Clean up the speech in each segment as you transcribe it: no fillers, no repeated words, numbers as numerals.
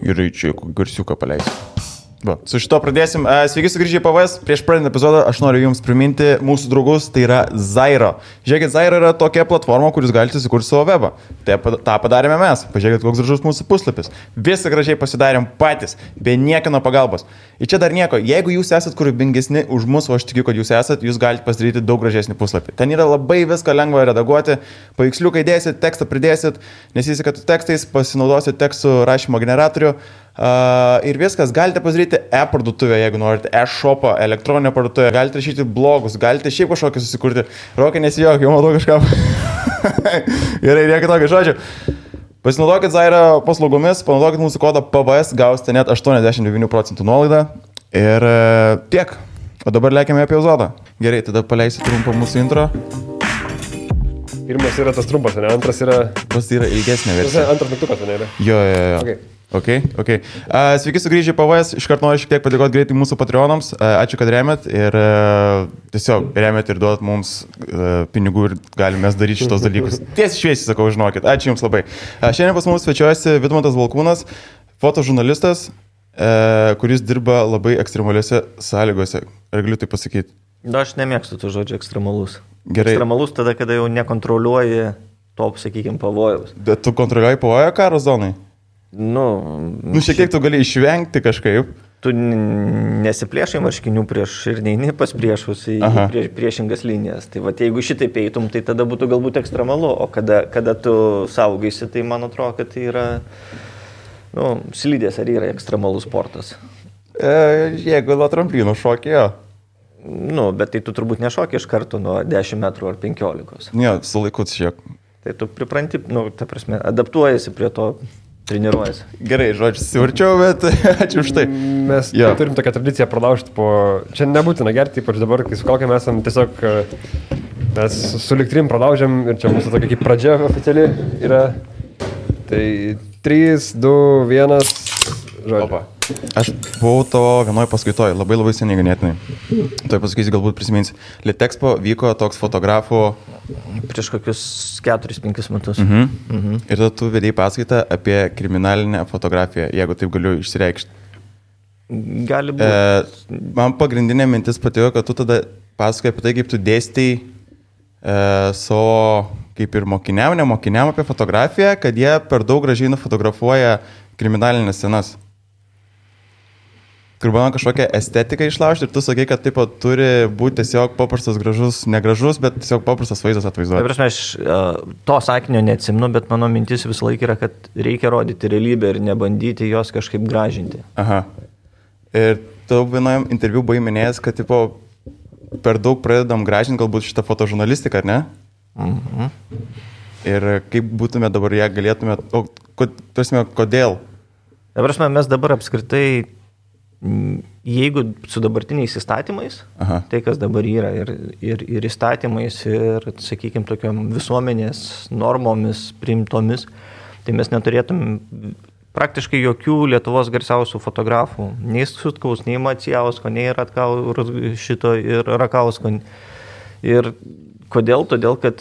Gerai, čia garsiuką paleisiu. Va, su šito pradėsim. Sveiki sugrįžę į PVS. Prieš pradedant epizodą aš noriu jums priminti mūsų draugus, tai yra Zairo. Žiūrėkit, Zairo yra tokia platforma, kur jūs galite sukurti savo webą. Ta padarėme mes. Pažiūrėkit, koks gražus mūsų puslapis. Visą gražiai pasidarėm patys, be niekino pagalbos. Ir čia dar nieko. Jeigu jūs esat kūrybingesni už mus, o aš tikiu, kad jūs esat, jūs galite pasidaryti daug gražesnį puslapį. Ten yra labai viską lengva redaguoti. Paveiksliukai dėsit, tekstą pridėsit, nesisikat tekstais, pasinaudosit tekstų rašymo generatorių. Ir viskas, galite pasidaryti e-parduotuvę, jeigu norite, e-shopą, elektroninę parduotuvę, galite rašyti blogus, galite šiaip kažkokį susikurti. Rokai nesijok, jau matau kažką. Gerai, reikia tokio žodžio. Pasinaudokit Zairo paslaugomis, panaudokit mūsų kodą PVS, gausite net 89% nuolaidą. Ir tiek. O dabar lėkime apie epizodą. Gerai, tada paleisiu trumpą mūsų intro. Pirmas yra tas trumpas, ne? Antras yra... Tas yra ilgesnė versija. Antras mygtukas, ne? Jo. Okay. Ok. Sveiki sugrįžę į PVS. Iškart noriu šiek tiek padėkoti greitai mūsų Patreonams. Ačiū, kad remiat ir tiesiog remiat ir duodat mums pinigų ir galime daryti šitos dalykus. Tiesiai šviesiai sakau, žinokit. Ačiū Jums labai. Šiandien pas mus svečiuojasi Vidmantas Valkūnas, fotožurnalistas, kuris dirba labai ekstremaliuose sąlygose. Ar galiu tai pasakyti? Aš nemėgstu tų žodžių ekstremalus. Gerai. Ekstremalus tada, kada jau nekontroliuoji to, sakykime, pavojaus. Bet tu kontroliuoji pavojų karo zonai? Šiek tiek tu gali išvengti kažkaip. Tu nesiplėšai marškinių prieš ir neini pas priešus į priešingas linijas. Tai va, jeigu šitaip eitum, tai tada būtų galbūt ekstremalu. O kada tu saugaisi, tai man atrodo, kad tai yra slidės ar yra ekstremalus sportas. Jeigu nuo tramplynų šokėjo. Bet tai tu turbūt nešokė iš karto nuo 10 metrų ar 15. Ne, su laiku šiek. Tai tu pripranti, ta prasme, adaptuojasi prie to. Treniruojasi. Gerai, žodžiu, sivarčiau, bet ačiū už tai. Mes turim tokią tradiciją pralaužti po... Čia nebūtina gerti, ypač dabar, kai su kaukėm esam tiesiog... Mes su liktrim pralaužiam ir čia mūsų tokia kaip pradžia oficiali yra. Tai 3, 2, 1, žodžiu. Opa. Aš buvau to vienoje paskaitoje, labai seniai ganėtinai. Tuoj pasakysiu, galbūt prisiminsi. Litexpo vyko toks fotografų... Prieš kokius 4-5 metus. Ir tada tu vedėjai paskaitą apie kriminalinę fotografiją, jeigu taip galiu išsireikšti. Gali būti. Man pagrindinė mintis patiko, kad tu tada pasakai apie tai, kaip tu dėstai savo, kaip ir mokiniam apie fotografiją, kad jie per daug gražiai nufotografuoja kriminalinės scenas. Kur bandom kažkokią estetiką išlaužti ir tu sakai, kad taip pat turi būti tiesiog paprastas gražus, negražus, bet tiesiog paprastas vaizdas atvaizduoti. Tai prasme, aš to sakinio neatsimenu, bet mano mintis visą laiką yra, kad reikia rodyti realybę ir nebandyti jos kažkaip gražinti. Aha. Ir tu vienojam interviu buvai minėjęs, kad tipo, per daug pradedam gražinti galbūt šitą fotožurnalistiką, ar ne? Ir kaip būtume dabar ją galėtume, kodėl? Tai prasme, mes dabar apskritai jeigu su dabartiniais įstatymais, tai kas dabar yra ir įstatymais ir, sakykime, tokiom visuomenės normomis priimtomis, tai mes neturėtum praktiškai jokių Lietuvos garsiausių fotografų, nei Sutkaus, nei Macijausko, nei šito ir Rakausko. Ir kodėl? Todėl, kad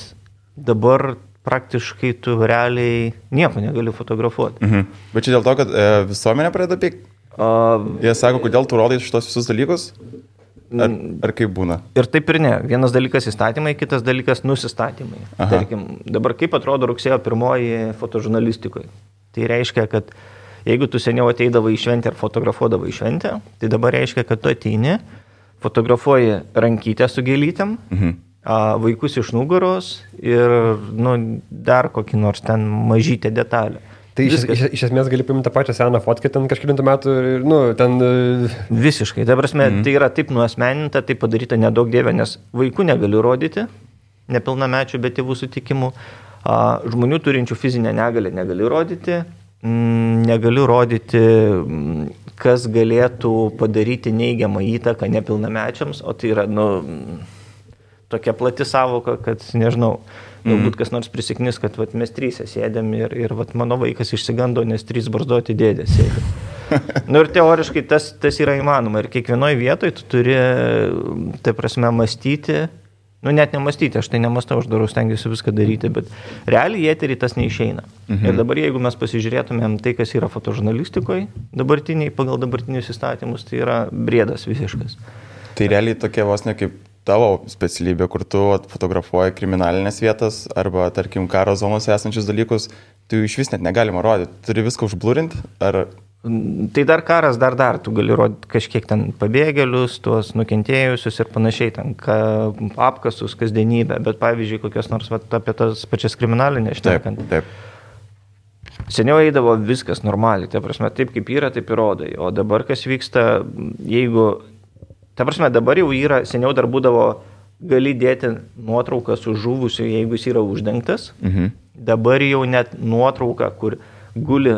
dabar praktiškai tu realiai nieko negali fotografuoti. Bet čia dėl to, kad visuomenė pradeda pykti? Jie sako, kodėl tu rodai šitos visus dalykus? Ar kaip būna? Ir taip ir ne. Vienas dalykas įstatymai, kitas dalykas nusistatymai. Tarkim, dabar kaip atrodo rugsėjo 1 fotožurnalistikoje? Tai reiškia, kad jeigu tu seniau ateidavai į šventę ar fotografuodavai į šventę, tai dabar reiškia, kad tu ateini, fotografuoji rankytę su gėlytėm, vaikus iš nugaros ir dar kokį nors ten mažytę detalę. Tai iš esmės gali paimti tą pačią seną fotkę ten kažkilintų metų ir, ten... Visiškai. Tai prasme, tai yra taip nuasmeninta, tai padaryta nedaug dievė, nes vaikų negaliu rodyti, nepilnamečių, bet tėvų sutikimų. Žmonių turinčių fizinę negalę negaliu rodyti, kas galėtų padaryti neigiamą įtaką nepilnamečiams, o tai yra, tokia plati savoka, kad, nežinau, galbūt kas nors prisiknis, kad mes 3 sėdėm ir mano vaikas išsigando, nes 3 barzdoti dėdės sėdė. Ir teoriškai tas yra įmanoma. Ir kiekvienoje vietoje tu turi, tai prasme, mąstyti Nu, net nemastyti, aš tai nemastau, aš darau, stengiuosi viską daryti, bet realiai į eterį tas neišeina. Ir dabar, jeigu mes pasižiūrėtumėm tai, kas yra fotožurnalistikoje dabartiniai, pagal dabartinius įstatymus, tai yra briedas visiškas. Tai realiai tokia vos ne kaip tavo specialybė, kur tu fotografuoji kriminalinės vietas arba, tarkim, karo zonose esančius dalykus, tu iš vis net negalima rodyti. Turi viską užblurinti, ar... Tai dar karas, dar, tu gali rodyti kažkiek ten pabėgėlius, tuos nukentėjusius ir panašiai, ten apkasus, kasdienybę, bet pavyzdžiui, kokios nors apie tas pačias kriminalinės šnekant. Taip. Seniau eidavo viskas normaliai, ta prasme, taip kaip yra, taip ir rodai, o dabar kas vyksta, jeigu, ta prasme, dabar jau yra, seniau dar būdavo, gali dėti nuotrauką su žuvusiu, jeigu jis yra uždengtas, dabar jau net nuotrauka, kur guli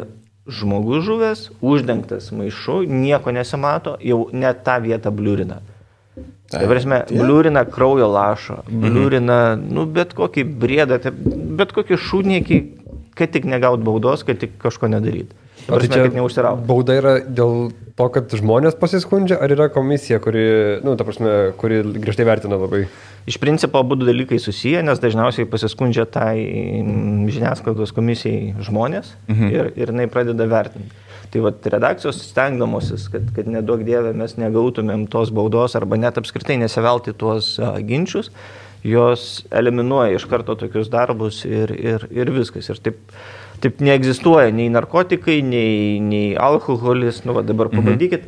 žmogus žuvęs, uždengtas maišu, nieko nesimato, jau net tą vietą bliurina. Tai prasme, bliurina kraujo lašą, bliurina, bet kokį briedą, bet kokį šūdniekį, kad tik negaut baudos, kad tik kažko nedaryt. Tai prasme, kad neužsiraut. Bauda yra dėl to, kad žmonės pasiskundžia, ar yra komisija, kuri griežtai vertina labai? Iš principo, abu dalykai susiję, nes dažniausiai pasiskundžia tai žiniasklaidos komisijai žmonės ir jinai pradeda vertinti. Tai vat redakcijos stengdamosis, kad neduok dievė mes negautumėm tos baudos arba net apskritai nesivelti tuos ginčius, jos eliminuoja iš karto tokius darbus ir viskas. Ir taip neegzistuoja nei narkotikai, nei alkoholis. Dabar pabandykit,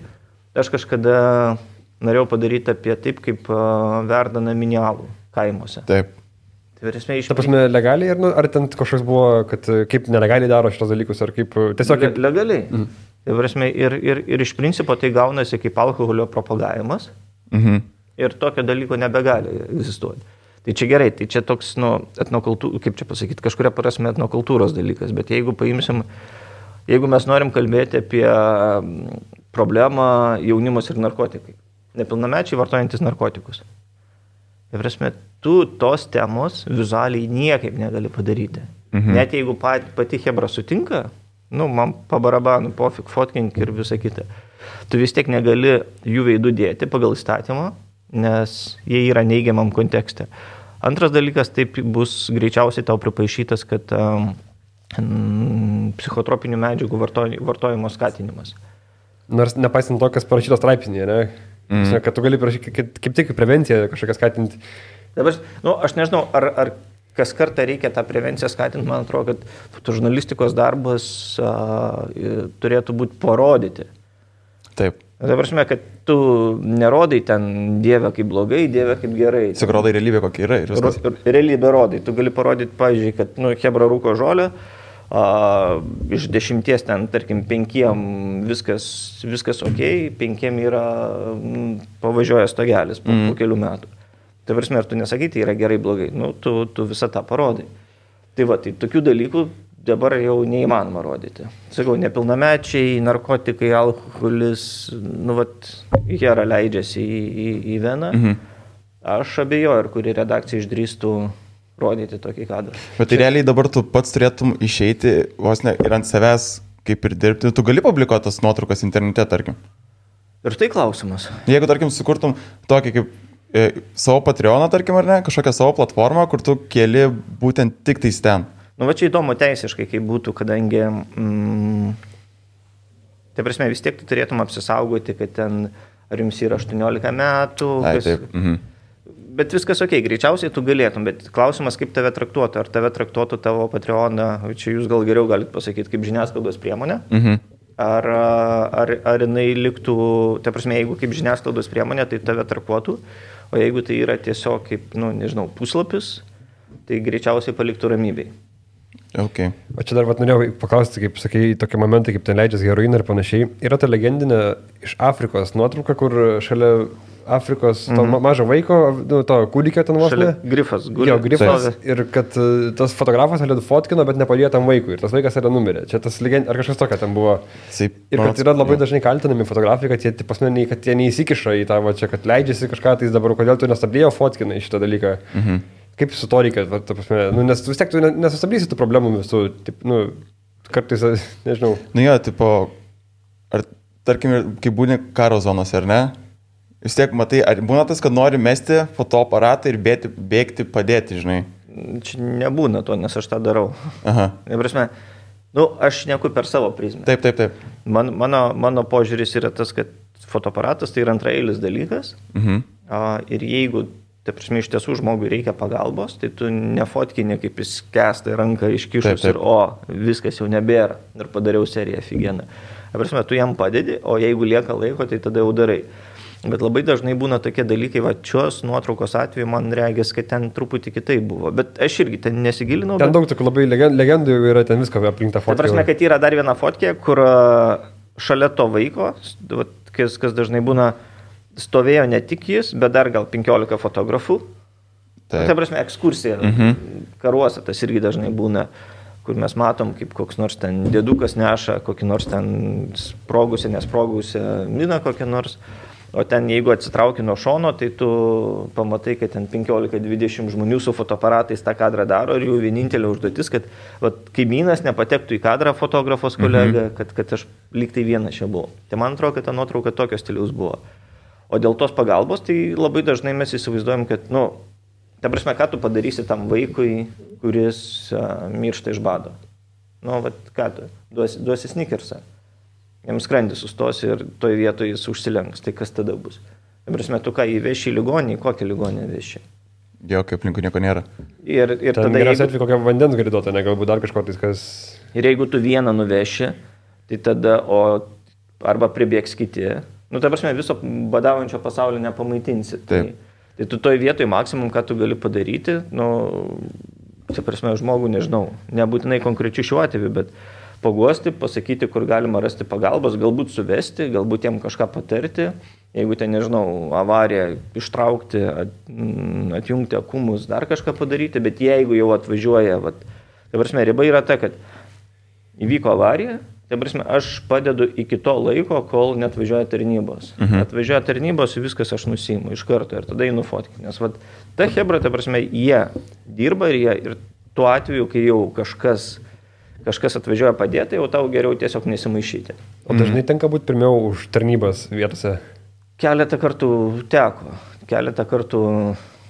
aš kažkada norėjau padaryti apie taip, kaip verda naminį alų kaimuose. Taip. Ta prasme, legaliai ar ten kažkoks buvo, kad kaip nelegaliai daro šitos dalykus, ar kaip tiesiog... Legaliai. Tai prasme, ir iš principo tai gaunasi kaip alkoholio propagavimas ir tokio dalyko nebegali egzistuoti. Tai čia gerai, tai čia toks, kaip čia pasakyti, kažkuria prasme etnokultūros dalykas, bet jeigu mes norim kalbėti apie problemą jaunimas ir narkotikai, nepilnamečiai vartojantis narkotikus. Tai prasme, tu tos temos vizualiai niekaip negali padaryti. Net jeigu pati chebra sutinka, man pabarabanu, pofik, fotkink ir visa kita. Tu vis tiek negali jų veidų dėti pagal įstatymą, nes jie yra neigiamam kontekste. Antras dalykas, taip bus greičiausiai tau pripaišytas, kad psichotropinių medžiagų vartojimo skatinimas. Nors nepaisant to, kas parašytos straipsnėje, ne? Kad tu gali parašyti kaip tik prevenciją kažkokią skatinti. Dabar, aš nežinau, ar kas kartą reikia tą prevenciją skatinti, man atrodo, kad fotožurnalistikos darbas turėtų būti parodyti. Taip. Tai prasme, kad tu nerodai ten Dievę kaip blogai, Dievę kaip gerai. Tiesiog rodai realybę, kokia yra ir viskas. Realybę rodai. Tu gali parodyti, pavyzdžiui, kad chebra rūko žolę, iš 10 ten, tarkim, 5 viskas ok, 5 yra pavažiuoja stogelis po kelių metų. Tai prasme, ar tu nesakai, tai yra gerai, blogai. Tu visą tą parodai. Tai tokių dalykų dabar jau neįmanoma rodyti. Sakau, nepilnamečiai, narkotikai, alkoholis, hera leidžiasi į veną. Aš abejoju, ar kuri redakcija išdrįstų rodyti tokį kadrą. Bet tai realiai dabar tu pats turėtum išeiti vos ne ir ant savęs kaip ir dirbti. Tu gali publikuoti tas nuotraukas internete, tarkim. Ir tai klausimas. Jeigu, tarkim, sukurtum tokį kaip savo Patreoną, tarkim, ar ne, kažkokią savo platformą, kur tu keli būtent tik tais ten. Čia įdomu teisiškai, kaip būtų, kadangi tai prasme, vis tiek tu turėtum apsisaugoti, kad ten ar jums yra 18 metų. Bet viskas ok, greičiausiai tu galėtum, bet klausimas, kaip tave traktuotų. Ar tave traktuotų tavo Patreoną, čia jūs gal geriau galit pasakyti, kaip žiniasklaidos priemonė. Ar jinai liktų, ta prasme, jeigu kaip žiniasklaidos priemonė, tai tave traktuotų, o jeigu tai yra tiesiog kaip, puslapis, tai greičiausiai paliktų ramybei. Okay. O čia dar norėjau paklausti, kaip sakai, tokie momentai, kaip ten leidžiasi heroiną ir panašiai. Yra ta legendinė iš Afrikos nuotrauka, kur šalia Afrikos to mažo vaiko, to kūdikio ten vos ne. Grifas. Jo, grifas. Ir kad tas fotografas fotkino, bet nepadėjo tam vaikui. Ir tas vaikas yra numirė. Čia tas legend, ar kažkas tokia ten buvo. Ir kad yra labai dažnai kaltinami fotografai, kad jie neįsikiša į tą, čia, kad leidžiasi kažką, tai dabar kodėl tu nestabdėjo fotkinai šitą dalyką. Kaip su to reikia, nes vis tiek tu nesustabdysi tų problemų visų, kartais, nežinau. Ar tarkim, kai būni karo zonose, ar ne? Vis tiek, matai, ar būna tas, kad nori mesti fotoaparatą ir bėgti padėti, žinai? Čia nebūna to, nes aš tą darau. Aha. Prasme, aš šneku per savo prizmę. Taip. Mano požiūris yra tas, kad fotoaparatas tai yra antraeilis dalykas. Ir jeigu, iš tiesų žmogui reikia pagalbos, tai tu nefotkini kaip jis kesta ranką iškišus ir viskas jau nebėra. Ir padariau seriją figieną. Prasme, tu jam padedi, o jeigu lieka laiko, tai tada jau darai. Bet labai dažnai būna tokie dalykai, šios nuotraukos atveju man regis, kad ten truputį kitai buvo. Bet aš irgi ten nesigilinau. Ten daug tokių labai legendų yra, ten visko aplink tą fotkę. Tai prasme, kad yra dar viena fotkė, kur šalia to vaiko, kas dažnai būna, stovėjo ne tik jis, bet dar gal 15 fotografų. Tai prasme, ekskursija karuose tas irgi dažnai būna, kur mes matom, kaip koks nors ten dėdukas neša, kokį nors ten nesprogusią miną kokią nors. O ten, jeigu atsitrauki nuo šono, tai tu pamatai, kad ten 15-20 žmonių su fotoaparatais tą kadrą daro ir jų vienintelė užduotis, kad kaimynas nepatektų į kadrą fotografos kolega, kad aš lyg tai vienas čia buvau. Tai man atrodo, kad ta nuotrauka tokio stiliaus buvo. O dėl tos pagalbos, tai labai dažnai mes įsivaizduojam, kad, ta prasme, ką tu padarysi tam vaikui, kuris miršta iš bado. Ką tu, duosi Snickersą. Jam skrandis sustos ir toj vietoje jis užsilenks. Tai kas tada bus? Prasme, tu ką įveši į ligonį, kokią ligonį veši? Jo, kaip aplinkų nieko nėra. Ir tada geriausia atveju kokią vandens gali duoti, ne galbūt dar kažko tais, kas... Ir jeigu tu vieną nuveši, tai tada, arba pribėgs kiti, ta prasme, viso badaujančio pasaulio nepamaitinsi. Tai tu toj vietoj maksimum, ką tu gali padaryti, ta prasme, žmogų nežinau, nebūtinai konkrečiai šiuo atveju, bet paguosti, pasakyti, kur galima rasti pagalbos, galbūt suvesti, galbūt jiem kažką patarti, jeigu ten, nežinau, avariją ištraukti, atjungti akumus, dar kažką padaryti, bet jeigu jau atvažiuoja, ta prasme, riba yra ta, kad įvyko avarija, ta prasme, aš padedu iki to laiko, kol netvažiuoja tarnybos. Atvažiuoja tarnybos, viskas aš nusiimu iš karto ir tada einu fotkinti. Nes ta hebra, ta prasme, jie dirba ir tuo atveju, kai jau kažkas atvažiuoja padėti, jau tau geriau tiesiog nesimaišyti. O dažnai tenka būti pirmiau už tarnybas vietose? Keletą kartų teko. Keletą kartų,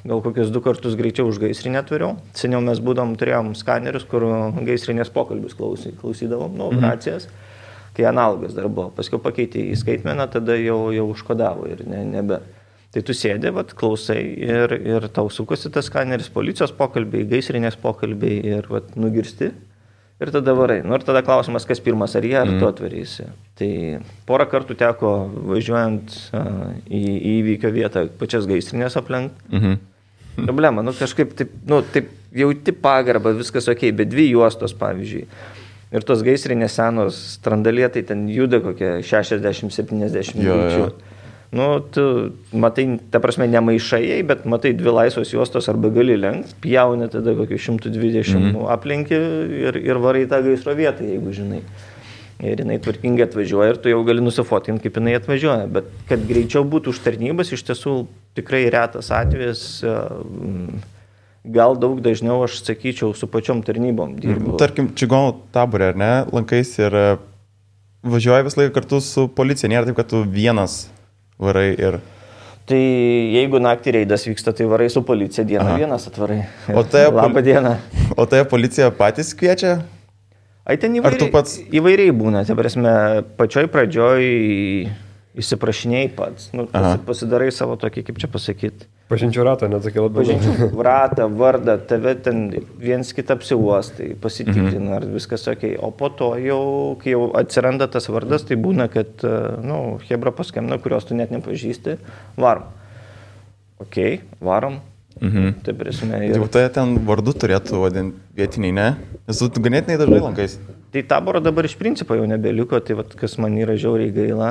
gal kokius 2 kartus greičiau už gaisrinę turėjau. Seniau mes turėjom skanerius, kur gaisrinės pokalbius klausydavom, racijas, kai analogas dar buvo. Paskiau pakeitė į skaitmeną, tada jau užkodavo ir nebe. Tai tu sėdė, klausai ir tau sukosi tas skaneris, policijos pokalbiai, gaisrinės pokalbiai ir nugirsti. Ir tada varai. Ir tada klausimas, kas pirmas, ar jie, ar tu atvarysi. Tai porą kartų teko važiuojant į įvykio vietą pačias gaisrinės aplenkti. Problema, kažkaip taip jauti pagarbą, viskas ok, bet 2 juostos, pavyzdžiui. Ir tos gaisrinės senos strandalėtai ten juda kokie 60-70 greičių. Tu matai, ta prasme, nemaišai, bet matai 2 laisvos juostos arba gali lenkti, pjauni tada kokį 120 aplinki ir varai tą gaisro vietą, jeigu žinai. Ir jinai tvarkingai atvažiuoja ir tu jau gali nusifotinti, kaip jinai atvažiuoja. Bet kad greičiau būtų už tarnybas, iš tiesų tikrai retas atvejis, gal daug dažniau, aš sakyčiau, su pačiom tarnybom dirbu. Tarkim, čigonų taborė, ar ne, lankais ir važiuoja vis laiką kartu su policija, nėra taip, kad tu vienas varai ir... Tai jeigu naktį reidas vyksta, tai varai su policija, dieną vienas atvarai. Labą dieną. O tai policija patys kviečia? Ai, ten įvairiai būna. Tai prasme, pačioj pradžioj įsiprašinėjai pats. Pasidarai savo tokį, kaip čia pasakyti. Pažinčių ratą, net sakė labai. Pažinčių ratą, vardą, tave ten viens kitą apsiuostai, pasitikrina, ar viskas ok. O po to jau, kai jau atsiranda tas vardas, tai būna, kad, hebra paskambina, kurios tu net nepažįsti, varom. Ok, varom. Tai prasme. Jau tai ten vardu turėtų vadinti vietiniai, ne? Nes tu ganėtinai dažnai lankais. Tai taboro dabar iš principo jau nebeliko, tai kas man yra žiauriai gaila.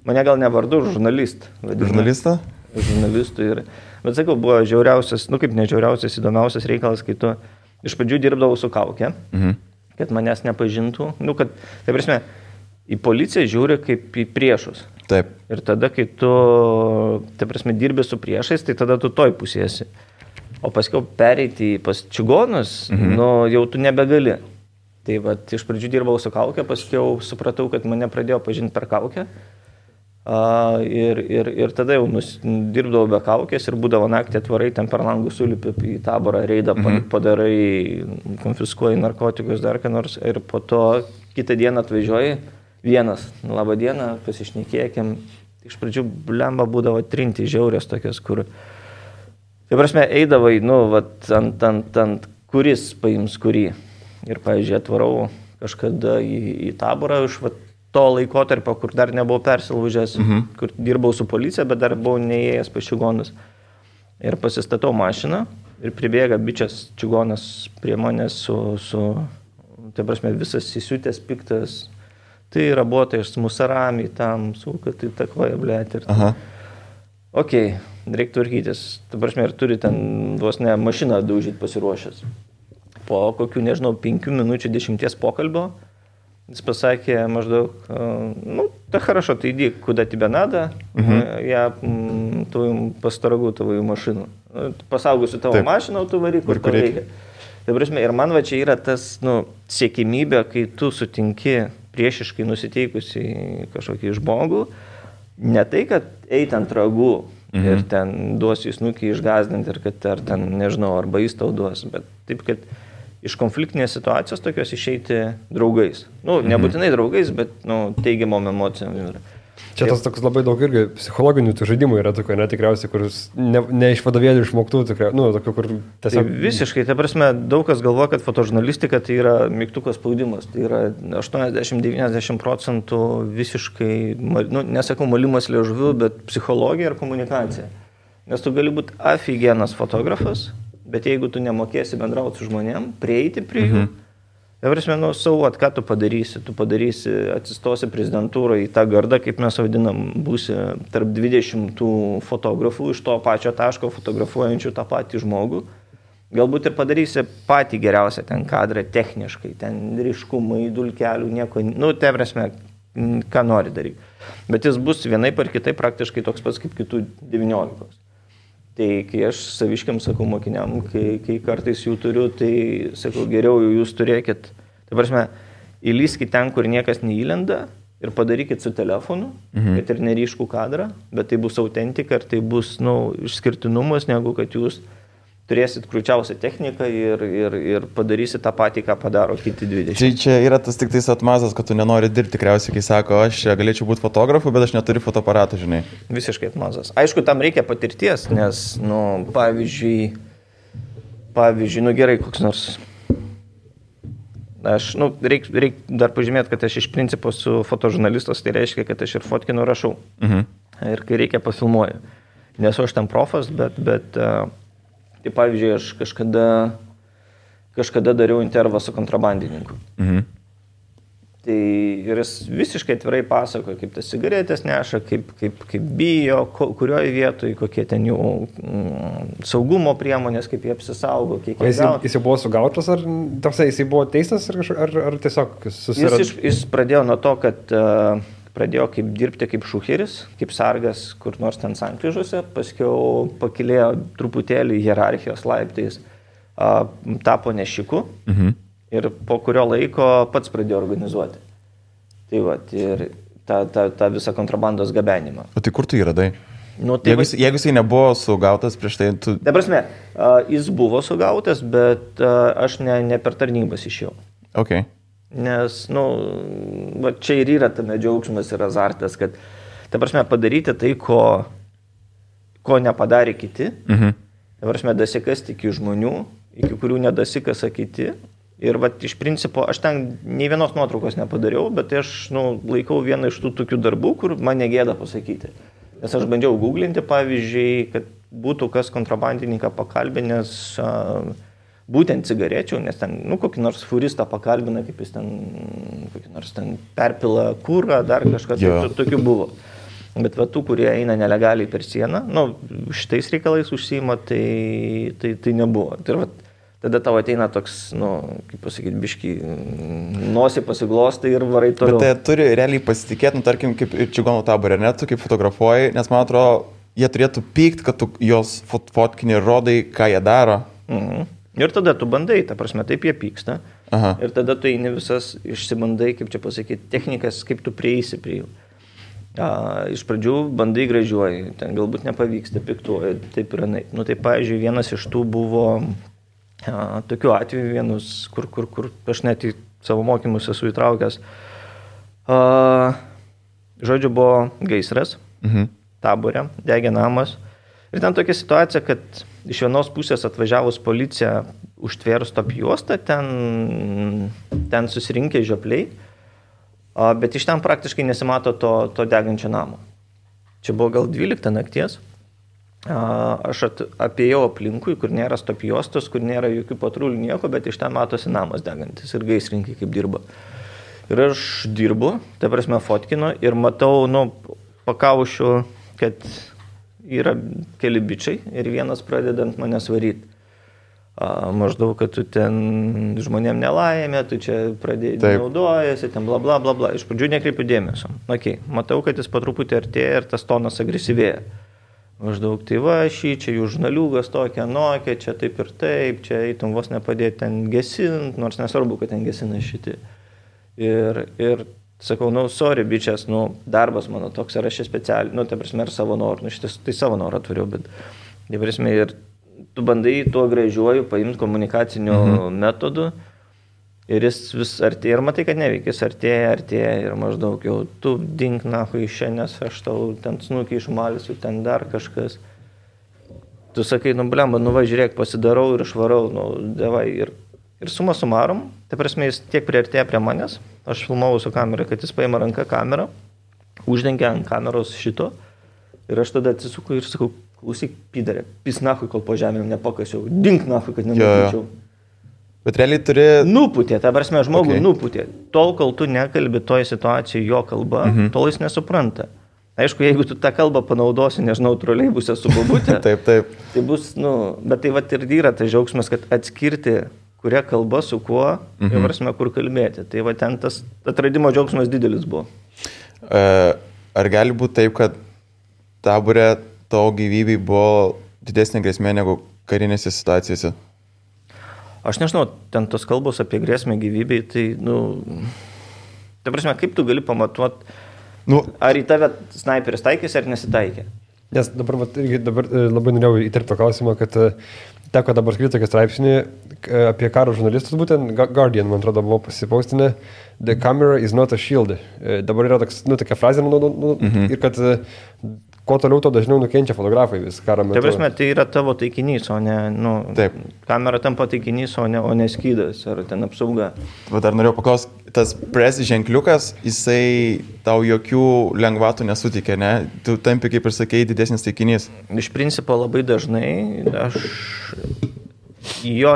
Mane gal ne vardu, žurnalist. Žurnalistą? Žurnalistų ir... Bet sakau, buvo žiauriausias, kaip ne žiauriausias, įdomiausias reikalas, kai tu iš pradžių dirbdavau su kaukė, kad manęs nepažintų. Tai prasme, į policiją žiūri kaip į priešus. Taip. Ir tada, kai tu, tai prasme, dirbi su priešais, tai tada tu toj pusėsi. O paskiau pereiti pas čigonus, jau tu nebegali. Tai iš pradžių dirbau su kaukė, paskiau supratau, kad mane pradėjo pažinti per kaukę. Ir tada jau dirbdavau be kaukės ir būdavo naktį atvarai, ten per langų sulipi į taborą, reidą padarai, konfiskuoji narkotikus, dar ką nors ir po to kitą dieną atvažiuoji vienas, labą dieną, pasišnekėkim. Iš pradžių blemba būdavo trinti žiaurės tokios, kur, tai prasme, eidavai, ant kuris paims kurį. Ir, pavyzdžiui, atvarau kažkada į taborą iš to laikotarpio, kur dar nebuvau persilaužęs, kur dirbau su policija, bet dar buvau neėjęs pas čigonus. Ir pasistatau mašiną ir pribėga bičias čigonas prie manęs tai prasme, visas įsiutęs, piktas. Tai rabuotai iš musarami tam, kad tai takvoja, blėt. Okei, reikia tvarkytis. Tai prasme, ir turi ten vos ne mašiną daužyti pasiruošęs. Po kokių, nežinau, 5 minučių 10 pokalbio jis pasakė maždaug, tai хорошо, tai иди, куда тебе надо, я твою посторогу твою машину. Pasaugosiu tavo mašiną, tu varyk, kur tau reikia. Tai prasme, ir man va čia yra tas, siekimybė, kai tu sutinki priešiškai nusiteikusi kažkokį žmogų, ne tai, kad eit ant ragų ir ten duosi snukį išgazdinti ir kad ar ten, nežinau, arba jis tau duos, bet taip, kad iš konfliktinės situacijos tokios išeiti draugais. Nebūtinai draugais, bet teigiamom emocijom. Čia tas toks labai daug irgi psichologinių tų žaidimų yra tokio, netikriausiai, kur ne iš vadovėlių išmoktų, tokio, kur tiesiog... Tai visiškai, ta prasme, daug kas galvoja, kad fotožurnalistika tai yra mygtuko spaudimas. Tai yra 80-90% visiškai, nesakau malimas liežuviu, bet psichologija ir komunikacija. Nes tu gali būti aфиgenas fotografas, bet jeigu tu nemokėsi bendrauti su žmonėm, prieiti prie jų, tai prasme, ką tu padarysi, atsistosi prezidentūrą į tą gardą, kaip mes vadinam, būsi tarp 20 fotografų iš to pačio taško fotografuojančių tą patį žmogų, galbūt ir padarysi patį geriausią ten kadrą techniškai, ten ryškumai, dulkelių, nieko, tai prasme, ką nori daryti. Bet jis bus vienaip ar kitaip praktiškai toks pats kaip kitų 19. Tai kai aš saviškiam sakau mokiniam, kai kartais jų turiu, tai sakau, geriau jūs turėkit, tai prasme, įlyskit ten, kur niekas neįlenda ir padarykit su telefonu, kad ir neryškų kadrą, bet tai bus autentika ir tai bus, išskirtinumas, negu kad jūs turėsit krūčiausią techniką ir padarysit tą patį, ką padaro kiti 20. Tai čia yra tas tik tais atmazas, kad tu nenori dirbti tikriausiai, kai sako, aš galėčiau būti fotografu, bet aš neturiu fotoaparato, žinai. Visiškai atmazas. Aišku, tam reikia patirties, nes, pavyzdžiui, gerai, koks nors. Aš, reik dar pažymėti, kad aš iš principo su fotožurnalistas, tai reiškia, kad aš ir fotkinu rašau. Ir kai reikia pafilmuoju. Nesu aš ten profas, bet tai pavyzdžiui, aš kažkada dariau intervą su kontrabandininku. Tai ir jis visiškai atvirai pasakoja, kaip tas cigaretės neša, kaip bijo, kurioje vietoje, kokie ten jų saugumo priemonės, kaip jie apsisaugo, kiek jie gauna. Jis jau buvo sugautas, ar jis buvo teistas, ar tiesiog susirado? Jis pradėjo nuo to, kad pradėjo dirbti kaip šucheris, kaip sargas, kur nors ten sankryžose, paskiau pakilėjo truputėlį hierarchijos laiptais, tapo nešiku ir po kurio laiko pats pradėjo organizuoti. Tai va, ir tą visą kontrabandos gabenimą. O tai kur tu jį radai? Jeigu jisai nebuvo sugautas prieš tai, tu... Ta prasme, jis buvo sugautas, bet aš ne per tarnybas išėjau. Okay. Nes, va čia ir yra tame džiaugsmas ir azartas, kad, ta prasme, padaryti tai, ko nepadarė kiti, ta prasme, dasikasti iki žmonių, iki kurių nedasikasa kiti. Ir va, iš principo, aš ten nei vienos nuotraukos nepadariau, bet aš, laikau vieną iš tų tokių darbų, kur man negėda pasakyti. Nes aš bandžiau googlinti, pavyzdžiui, kad būtų kas kontrabandininką pakalbinęs būtent cigarečių, nes ten, kokį nors furistą pakalbina, kaip jis ten, kokį nors ten perpila kūrą, dar kažkas, tokių buvo. Bet va, tų, kurie eina nelegaliai per sieną, šitais reikalais užsiima, tai nebuvo. Tai va, tada tau ateina toks, kaip pasakyti, biški, nosį pasiglostai ir varai toliau. Bet tai turi realiai pasitikėti, tarkim, kaip ir čigonų taborė, ne, tu kaip fotografuoji, nes man atrodo, jie turėtų pykti, kad tu jos fotkinį rodai, ką jie daro. Ir tada tu bandai, ta prasme, taip jie pyksta. Ir tada tu eini visas išsibandai, kaip čia pasakyti, technikas, kaip tu prieisi prie jų. Iš pradžių bandai gražiuoji, ten galbūt nepavyksta, piktuoji, taip ir anaip. Nu, tai, pavyzdžiui, vienas iš tų buvo tokių atvejų, vienus, kur aš net į savo mokymus esu įtraukęs. Žodžiu, buvo gaisras, Tabore, degė namas. Ir ten tokia situacija, kad iš vienos pusės atvažiavus policija užtvėrus top juostą, ten susirinkę žiopliai, bet iš ten praktiškai nesimato to degančio namo. Čia buvo gal 12 nakties. Aš apėjau aplinkui, kur nėra stop juostos, kur nėra jokių patrulių nieko, bet iš ten matosi namas degantis ir gaisrininkai kaip dirba. Ir aš dirbu, ta prasme fotkinu ir matau, pakaušiu, kad yra keli bičiai ir vienas pradeda ant manęs varyti. Maždaug, kad tu ten žmonėm nelaimė, tu čia pradėjai naudojasi, ten bla bla bla bla. Iš pradžių nekreipiu dėmesio. Matau, kad jis po truputį artėja ir tas tonas agresyvėja. Maždaug, tai va, čia jų žurnaliugas tokia, nokia, čia taip ir taip, čia eitum vos nepadėti ten gesint, nors nesvarbu, kad ten gesina šiti. Ir sakau, sorry, bičias, darbas mano toks, ar aš specialiai, ta prasme, ir savo norų, šitas tai savo norą atvariau, bet, ta prasme, ir tu bandai tuo gražiuoju paimti komunikaciniu metodu ir jis vis artėja ir matai, kad neveikia, jis artėja ir maždaug jau tu dink nahui iš čia, nes aš tau ten snukį išmalysiu, ten dar kažkas. Tu sakai, blemba, žiūrėk, pasidarau ir išvarau, devai. Ir suma sumarum, tai prasme, jis tiek priartėja prie manęs, aš filmavau su kamera, kad jis paima ranką kamerą, uždengia ant kameros šito ir aš tada atsisuku ir sakau, klausyk, pidarė, pis nahui, kol po žemėm nepakasiau, dink nahui, kad nenupūčiau. Bet realiai turi... Nupūtė, ta prasme, žmogų nupūtė. Tol, kol tu nekalbi toje situacijoje jo kalba, tol jis nesupranta. Aišku, jeigu tu tą kalbą panaudosi, nežinau, troleibuse su bobutė, taip. Tai bus, bet tai vat ir yra tas džiaugsmas, kad atskirti, kuria kalba su kuo, ir prasme, kur kalbėti. Tai va ten tas atradimo džiaugsmas didelis buvo. Ar gali būti taip, kad Tabore tavo gyvybei buvo didesnė grėsmė negu karinėse situacijose? Aš nežinau, ten tos kalbos apie grėsmę gyvybei, tai, ta prasme, kaip tu gali pamatuoti, ar į tave snaiperis taikėsi ar nesitaikė? Nes dabar labai norėjau įterpti klausimą, kad teko dabar skaityti tokį straipsnį apie karo žurnalistus, būtent Guardian, man atrodo, buvo pasipaustinę, the camera is not a shield. Dabar yra tokia frazė, ir kad kuo toliau, to dažniau nukenčia fotografai vis karo metu. Tai prasme, tai yra tavo taikinys, o ne, kamera tampa taikinys, o ne skydas, ar ten apsauga. Dar norėjau paklausti, tas press ženkliukas, jisai tau jokių lengvatų nesutikė, ne? Tu tampi, kaip ir sakei, didesnis taikinys. Iš principo labai dažnai,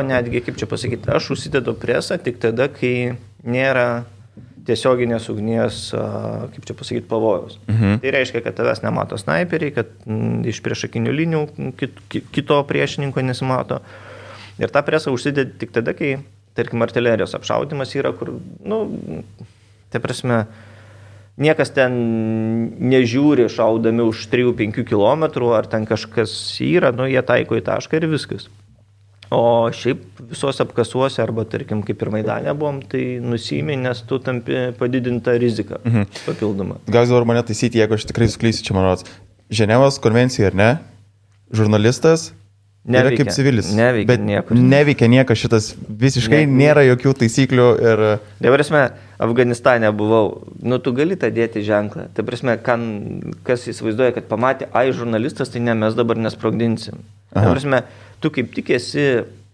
netgi, kaip čia pasakyti, aš užsidedu presą tik tada, kai nėra tiesioginės ugnies, kaip čia pasakyti, pavojaus. Tai reiškia, kad tavęs nemato snaiperiai, kad iš priešakinių linijų kito priešininko nesimato. Ir tą presą užsidedi tik tada, kai, tarkim, artilerijos apšaudimas yra, kur, tai prasme, niekas ten nežiūri šaudami už 3-5 km, ar ten kažkas yra, jie taiko į tašką ir viskas. O šiaip visos apkasuose, arba, tarkim, kaip ir Maidane buvom, tai nusiimi, nes tu tampi padidintą riziką papildomą. Gal dabar mane taisyti, jeigu aš tikrai suklysiu, čia man rodos. Ženevos konvencija, ar ne? Žurnalistas yra kaip civilis. Neveikia niekur. Neveikia niekas šitas, visiškai nėra jokių taisyklių ir... Tai prasme, Afganistane buvau, tu gali tą dėti ženklą. Tai prasme, kas įsivaizduoja, kad pamatė, žurnalistas, tai ne, mes dabar nesprogdinsim. Tai prasme, tu kaip tik esi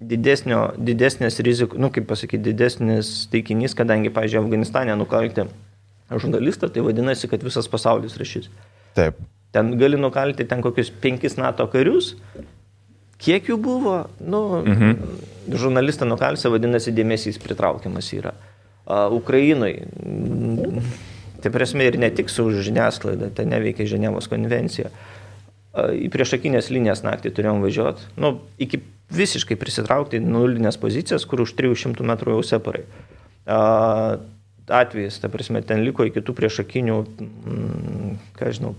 didesnės rizikų, kaip pasakyti, didesnis taikinys, kadangi, pavyzdžiui, Afganistane nukalti žurnalistą, tai vadinasi, kad visas pasaulis rašys. Taip. Ten gali nukalti ten kokius 5 NATO karius, kiek jų buvo, žurnalistą nukalsi, vadinasi, dėmesys pritraukiamas yra. Ukrainoj, tai prasme ir ne tik su žiniasklaida, tai neveikia Ženevos konvencija. Į priešakinės linijas naktį turėjom važiuoti, iki visiškai prisitraukti nulinės pozicijas, kur už 300 metrų jau separai. Atvejais, ta prasme, ten liko iki tų priešakinių,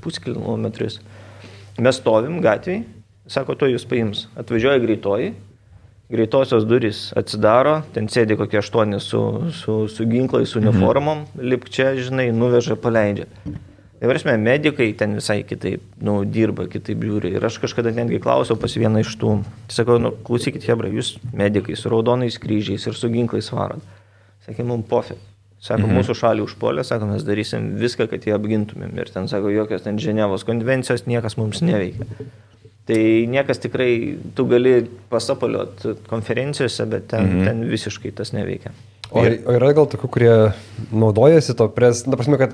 puskilometris. Mes stovim gatvėj, sako, to jūs paims. Atvažiuoja greitoji, greitosios durys atsidaro, ten sėdi kokie 8 su ginklais, su uniformom, lipk čia, nuveža, paleidžia. Tai prasme, medikai ten visai kitaip, dirba, kitaip žiūri. Ir aš kažkada netgi klausiau pas vieną iš tų. Sakau, klausykit, hebra, jūs medikai su raudonais kryžiais ir su ginklais varot. Sakė, mums pofė. Sako, mūsų šalį užpuolė, sako, mes darysim viską, kad jį apgintumėm. Ir ten, sako, jokios ten Ženevos konvencijos, niekas mums neveikia. Tai niekas tikrai, tu gali pasapaliot konferencijose, bet ten visiškai tas neveikia. O yra gal tokių, kurie naudojasi to prasme, kad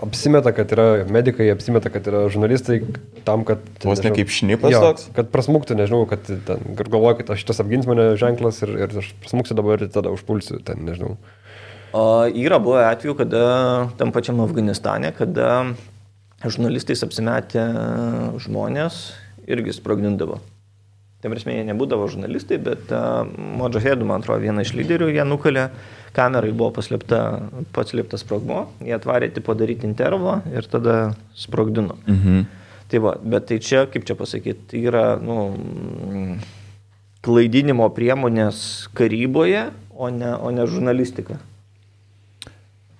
apsimeta, kad yra medikai, apsimeta, kad yra žurnalistai tam, kad... Vos ne kaip šnipas toks? Kad prasmuktų, nežinau, kad ten galvoja, kad šitas apgins mane ženklas ir aš prasmuksiu dabar ir tada užpulsiu, ten nežinau. Yra buvę atveju, kada tam pačiam Afganistane, kada žurnalistais apsimetę žmonės irgi sprogdindavo. Tai prasme, jie nebūdavo žurnalistai, bet Modžahedų, man atrodo, vieną iš lyderių, jie nukalė, kamerai buvo paslėptas sprogmo, jie atvarė tipo daryti intervą ir tada sprogdino. Tai va, bet tai čia, kaip čia pasakyti, yra klaidinimo priemonės karyboje, o ne žurnalistika.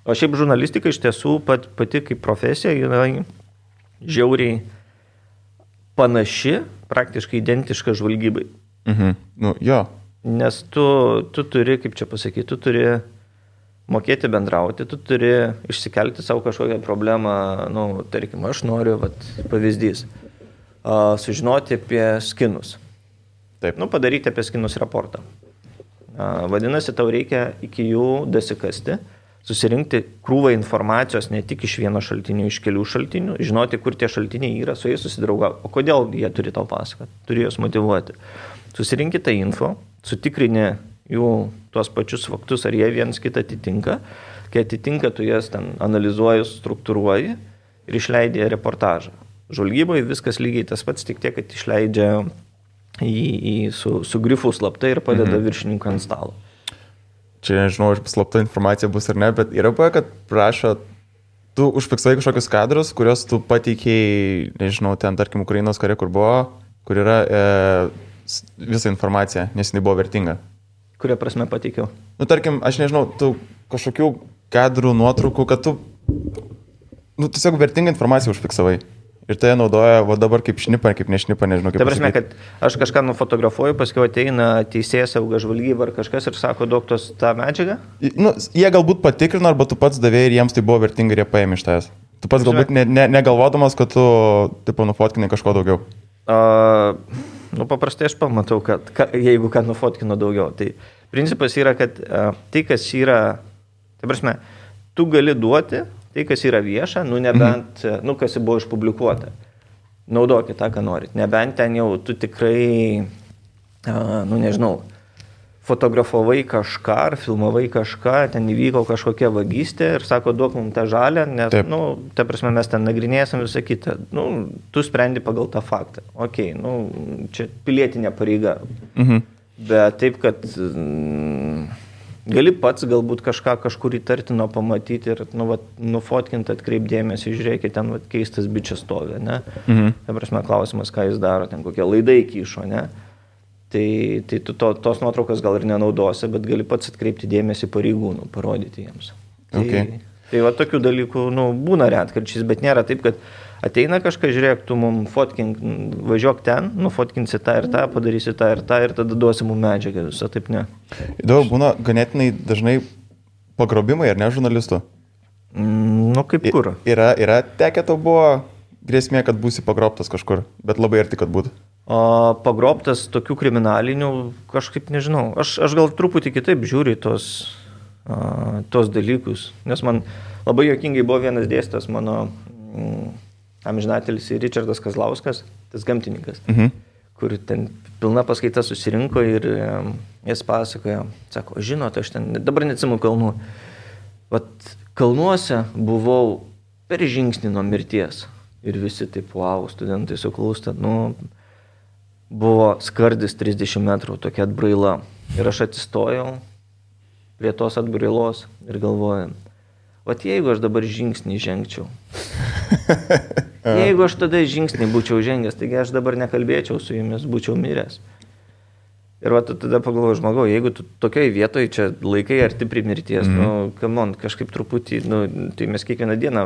O šiaip žurnalistika iš tiesų pati kaip profesija yra žiauriai panaši, praktiškai identiška žvalgybai. Jo. Nes tu turi, kaip čia pasakyti, tu turi mokėti bendrauti, tu turi išsikelti savo kažkokią problemą, tarkim, aš noriu, pavyzdys, sužinoti apie skinus. Taip. Padaryti apie skinus raportą. Vadinasi, tau reikia iki jų dasikasti, susirinkti krūvą informacijos ne tik iš vieno šaltinio, iš kelių šaltinių, žinoti, kur tie šaltiniai yra, su jais susidraugauti. O kodėl jie turi tau pasakoti? Turi juos motyvuoti. Susirinkti tą info, sutikrini jų tuos pačius faktus, ar jie vienas kitą atitinka. Kai atitinka, tu jas ten analizuoji, struktūruoji ir išleidži reportažą. Žvalgyboje viskas lygiai tas pats, tik tiek, kad išleidžia su grifu slaptai ir padeda viršininkui ant stalo. Čia nežinau, ar slapta informacija bus ar ne, bet yra buvę, kad prašo, tu užfiksavai kažkokius kadrus, kuriuos tu pateikėjai, nežinau, ten, tarkim, Ukrainos kare, kur buvo, kur yra visa informacija, nes jinai buvo vertinga. Kuria prasme pateikiau? Tarkim, aš nežinau, tu kažkokių kadrų, nuotraukų, kad tu, tiesiog vertingą informaciją užfiksavai. Ir tai naudoja, dabar kaip šnipa, kaip nešnipa, nežinau kaip. Tai prasme, kad aš kažką nufotografuoju, paskui ateina teisėjas, sauga žvalgyba ar kažkas ir sako, doktos tą medžiagą? Jie galbūt patikrino, arba tu pats davėjai ir jiems tai buvo vertinga ir jie paėmė iš tavęs. Tu pats galbūt negalvodamas, kad tu nufotkinai kažko daugiau. Paprastai aš pamatau, kad jeigu ką nufotkino daugiau. Tai principas yra, kad tai, kas yra, tai prasme, tu gali duoti tai, kas yra vieša, nebent, kas buvo išpublikuota. Naudokit tą, ką norit. Nebent ten jau tu tikrai, nežinau, fotografavai kažką ar filmavai kažką, ten įvyko kažkokia vagystė ir sako, duok mums tą žalę, nes, ta prasme, mes ten nagrinėsim visą kitą. Tu sprendi pagal tą faktą. Okei, čia pilietinė pareiga. Bet taip, kad gali pats galbūt kažkur įtartino pamatyti ir nufotkinti, atkreipdėmėsi, žiūrėkit, ten keistas bičias stovi, ne? Ta prasme, klausimas, ką jis daro, ten kokie laidai kyšo, ne? Tai tu tos nuotraukas gal ir nenaudosi, bet gali pats atkreipti dėmesį pareigūnų, parodyti jiems. Tai tokių dalykų, būna retkarčiais, bet nėra taip, kad ateina kažką, žiūrėk, tu mums fotkink, važiuok ten, nufotkinsi tą ir tą, padarysi tą ir tada duosi mums medžiagą, visą taip ne. Įdomu, būna ganėtinai dažnai pagrobimai, ar ne, žurnalistų? Kaip kur? Yra tekę tau buvo grėsmė, kad būsi pagrobtas kažkur, bet labai arti, kad būtų. Pagrobtas tokių kriminalinių, kažkaip nežinau. Aš gal truputį kitaip žiūriu tos dalykus, nes man labai juokingai buvo vienas dėstytojas mano amžinatelis Ričardas Kazlauskas, tas gamtininkas, kur ten pilna paskaita susirinko ir jis pasakojo, sako, žinot, aš ten dabar neatsimenu kalnų, kalnuose buvau per žingsnį nuo mirties ir visi taip, wow, studentai suklūsta, buvo skardis 30 metrų, tokia atbraila ir aš atsistojau prie tos atbrailos ir galvoju, jeigu aš dabar žingsnį žengčiau, jeigu aš tada žingsnį būčiau žengęs, taigi aš dabar nekalbėčiau su jumis, būčiau miręs. Ir va, tada pagalvoju, žmogau, jeigu tu tokiai vietoje čia laikai arti prie mirties, kažkaip truputį, tai mes kiekvieną dieną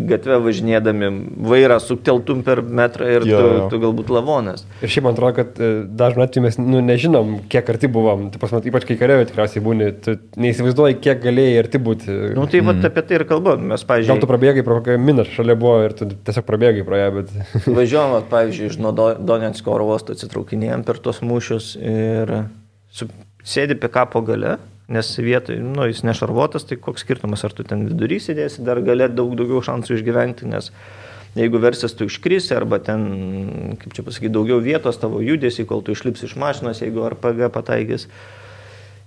gatvę važinėdami vairą sukteltum per metrą ir tu galbūt lavonas. Ir šiaip man atrodo, kad dažnai atveju mes nežinom, kiek arti buvom. Tai pas mat, ypač kai karioje tikriausiai būni, tu neįsivaizduoji, kiek galėjai arti būti. Tai va apie tai ir kalbam. Mes, pavyzdžiui... Gal tu prabėgai pro kokią miną šalia buvo ir tu tiesiog prabėgai pro ją, bet... Važiuojam, pavyzdžiui, iš Donetsko oro uosto atsitraukinėjom per tos mūšius ir sėdi pikapo gale, nes vietoj, jis nešarvuotas, tai koks skirtumas, ar tu ten vidury sėdėsi, dar galė daugiau šansų išgyventi, nes jeigu versis tu iškrisi, arba ten, kaip čia pasakyti, daugiau vietos tavo judesi, kol tu išlipsi iš mašinos, jeigu RPG pataikys.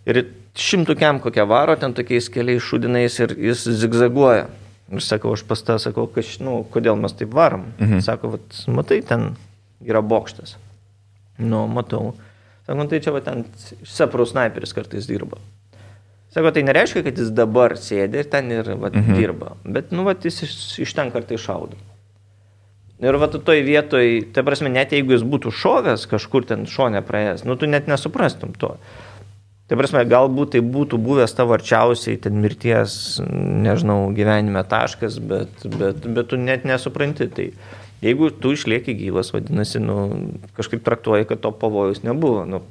Ir 100 kem kokią varo, ten tokiais keliais šudinais ir jis zigzaguoja. Ir sakau, aš pas tą sakau, kodėl mes taip varom. Sako, matai, ten yra bokštas. Matau. Sako, tai čia va ten Seprų snaiperis kartais dirba. Sako, tai nereiškia, kad jis dabar sėdė ir ten ir dirba. Bet, jis iš ten kartais šaudo. Ir va, toj vietoj, tai prasme, net jeigu jis būtų šovęs kažkur ten šone praėjęs, tu net nesuprastum to. Tai prasme, galbūt tai būtų buvęs tavo arčiausiai ten mirties, nežinau, gyvenime taškas, bet tu net nesupranti. Tai jeigu tu išlieki gyvas, vadinasi, kažkaip traktuoji, kad to pavojus nebuvo.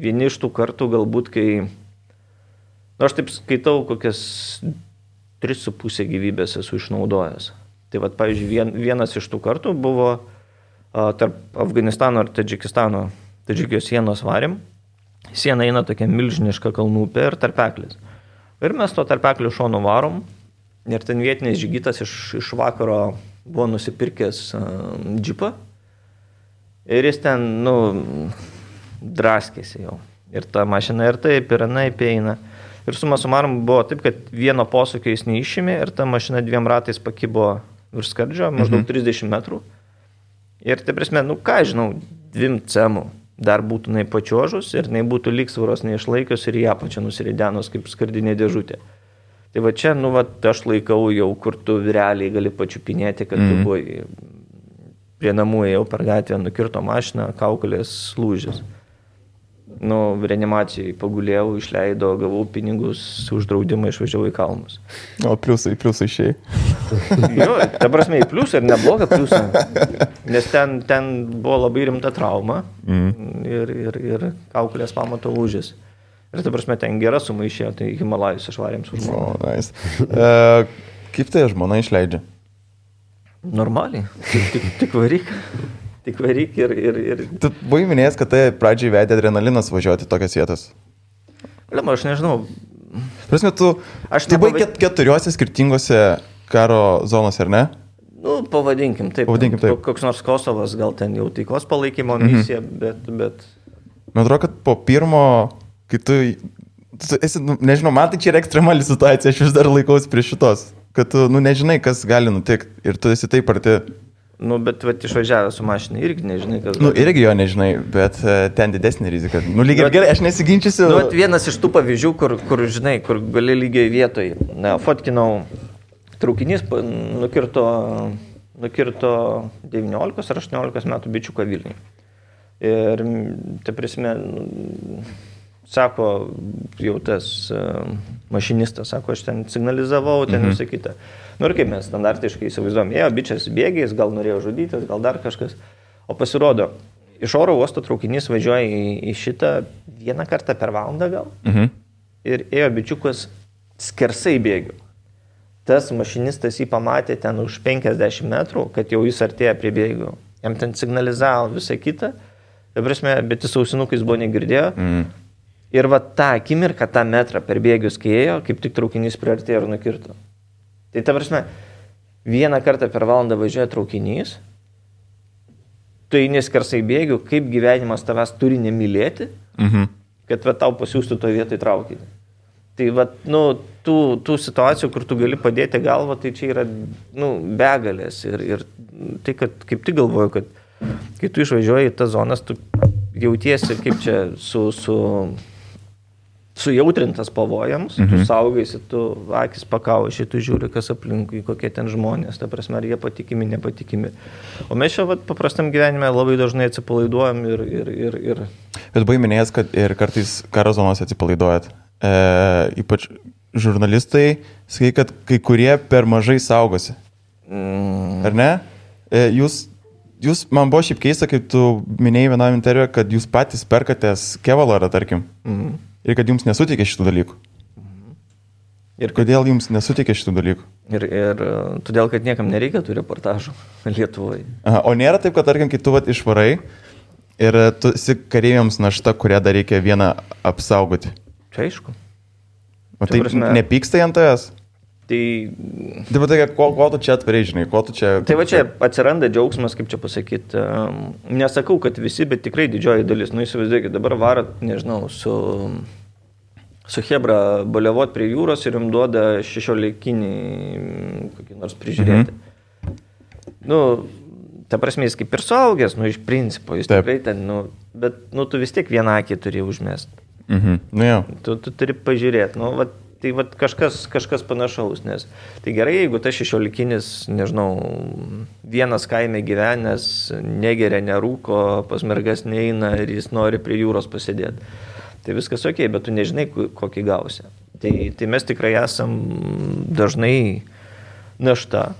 Vieni iš tų kartų galbūt, kai... aš taip skaitau, kokias 3,5 gyvybės esu išnaudojęs. Tai pavyzdžiui, vienas iš tų kartų buvo tarp Afganistano ir Tadžikijos sienos varėm. Siena eina tokia milžiniška kalnų upė ir tarpeklis. Ir mes to tarpeklio šonu varom. Ir ten vietinis žygitas iš vakaro buvo nusipirkęs džipą. Ir jis ten, draskėsi jau. Ir ta mašina ir taip, ir anaip eina. Ir suma sumarum buvo taip, kad vieno posūkio jis neišėmė ir ta mašina 2 ratais pakibo virš skardžio, maždaug 30 metrų. Ir tai prasme, 2 cemų dar būtų pačiožus ir būtų lygsvaros neišlaikius ir ją pačią nusiridenus kaip skardinė dėžutė. Tai va čia, aš laikau jau, kur tu realiai gali pačiupinėti, kad tu buvai prie namų, ėjau per gatvę, nukirto mašiną, kaukolės lūžis. Reanimacijai pagulėjau, išleidau, gavau pinigus, už draudimą išvažiavau į kalnus. O pliusai išėjai. Jo, ta prasme, į pliusą ir neblogą pliusą. Nes ten buvo labai rimta trauma ir kaukolės pamato lūžis. Ir ta prasme, ten gera suma išėjo, tai Himalajus išvarėm su žmona. Nice. Kaip tai žmona išleidžia? Normaliai. Tik varyk. Tik varyk ir... Tu buvai minėjęs, kad tai pradžiai vedė adrenalinas važiuoti tokias vietas. Aš nežinau. Prasme, tu buvai 4 skirtingose karo zonose, ar ne? Pavadinkim taip. Koks nors Kosovas, gal ten jau taikos palaikymo misija, bet... Man atrodo, kad po pirmo, kai tu esi, nežinau, man tai čia yra ekstremali situacija, aš vis dar laikausi prie šitos, kad tu, nežinai, kas gali nutikti ir tu esi taip arti. Bet išvažiavęs su mašinai irgi nežinai, kas... Irgi jo nežinai, bet ten didesnė rizika. Lygiai gerai, aš nesiginčiusiu. Vienas iš tų pavyzdžių, kur žinai, kur gali lygiai vietoj. Fotkinau, traukinys nukirto 19 ar 18 metų bičiuką Vilniui. Ir, tai prasme, sako, jau tas mašinistas, sako, aš ten signalizavau, ten visą kitą. Ir kaip mes standartiškai įsivaizduom, bičias bėgiais, gal norėjo žudytis, gal dar kažkas. O pasirodo, iš oro uosto traukinys važiuoja į šitą 1 kartą per valandą gal. Ir ėjo bičiukas skersai bėgių. Tas mašinistas jį pamatė ten už 50 metrų, kad jau jis artėja prie bėgių. Jam ten signalizavo visą kitą. Bet jis ausinukais buvo negirdėjo. Ir va tą akimirką, tą metrą per bėgius, kai ėjo, kaip tik traukinys priartėjo ir nukirto. Tai ta prasme, 1 kartą per valandą važiuoja traukinys, tu eini skersai bėgių, kaip gyvenimas tavęs turi nemylėti, kad va tau pasiūstų to vietoj traukinį. Tai va, tų situacijų, kur tu gali padėti galvą, tai čia yra, begalės. Ir tai, kad kaip tik galvoju, kad kai tu išvažiuoji į tas zonas, tu jautiesi kaip čia sujautrintas pavojams, tu saugaisi, tu akis pakauši, tu žiūri, kas aplinkui, kokie ten žmonės, ta prasme, ar jie patikimi, nepatikimi. O mes čia paprastam gyvenime labai dažnai atsipalaiduojam ir... Bet buvai minėjęs, kad ir kartais karo zonose atsipalaiduojat. Ypač žurnalistai, sakai, kad kai kurie per mažai saugosi. Ar ne? Jūs, man buvo šiaip keista, kaip tu minėjai vienam interviu, kad jūs patys perkatės kevalarą, tarkim. Ir kad jums nesuteikė šitų dalykų. Ir kodėl jums nesuteikė šitų dalykų? Ir todėl, kad niekam nereikia tų reportažų Lietuvoje. Aha, o nėra taip, kad, tarkim, kai tu išvarai ir tu esi kareiviams našta, kurią dar reikia vieną apsaugoti. Čia aišku. O tai nepyksta ant tavęs? Tai... Taip, tai ko tu čia atverai, žinai, ko tu čia... Tai va čia atsiranda džiaugsmas, kaip čia pasakyti. Nesakau, kad visi, bet tikrai didžioji dalis. Nu, įsivaizduokit, dabar varat, nežinau, su Hebra baliavot prie jūros ir jums duoda 16-kinį kokį nors prižiūrėti. Nu, ta prasme, jis kaip ir suaugęs, nu, iš principo, jis tikrai ten, nu, bet, nu, tu vis tiek vieną akį turi užmest. Nu, jau. Tu turi pažiūrėti, nu, va, tai va, kažkas panašaus, nes tai gerai, jeigu tas 16-kinis, nežinau, vienas kaime gyvenęs, negeria, nerūko, pas mergas neina ir jis nori prie jūros pasėdėti. Tai viskas ok, bet tu nežinai, kokį gausi. Tai mes tikrai esam dažnai našta.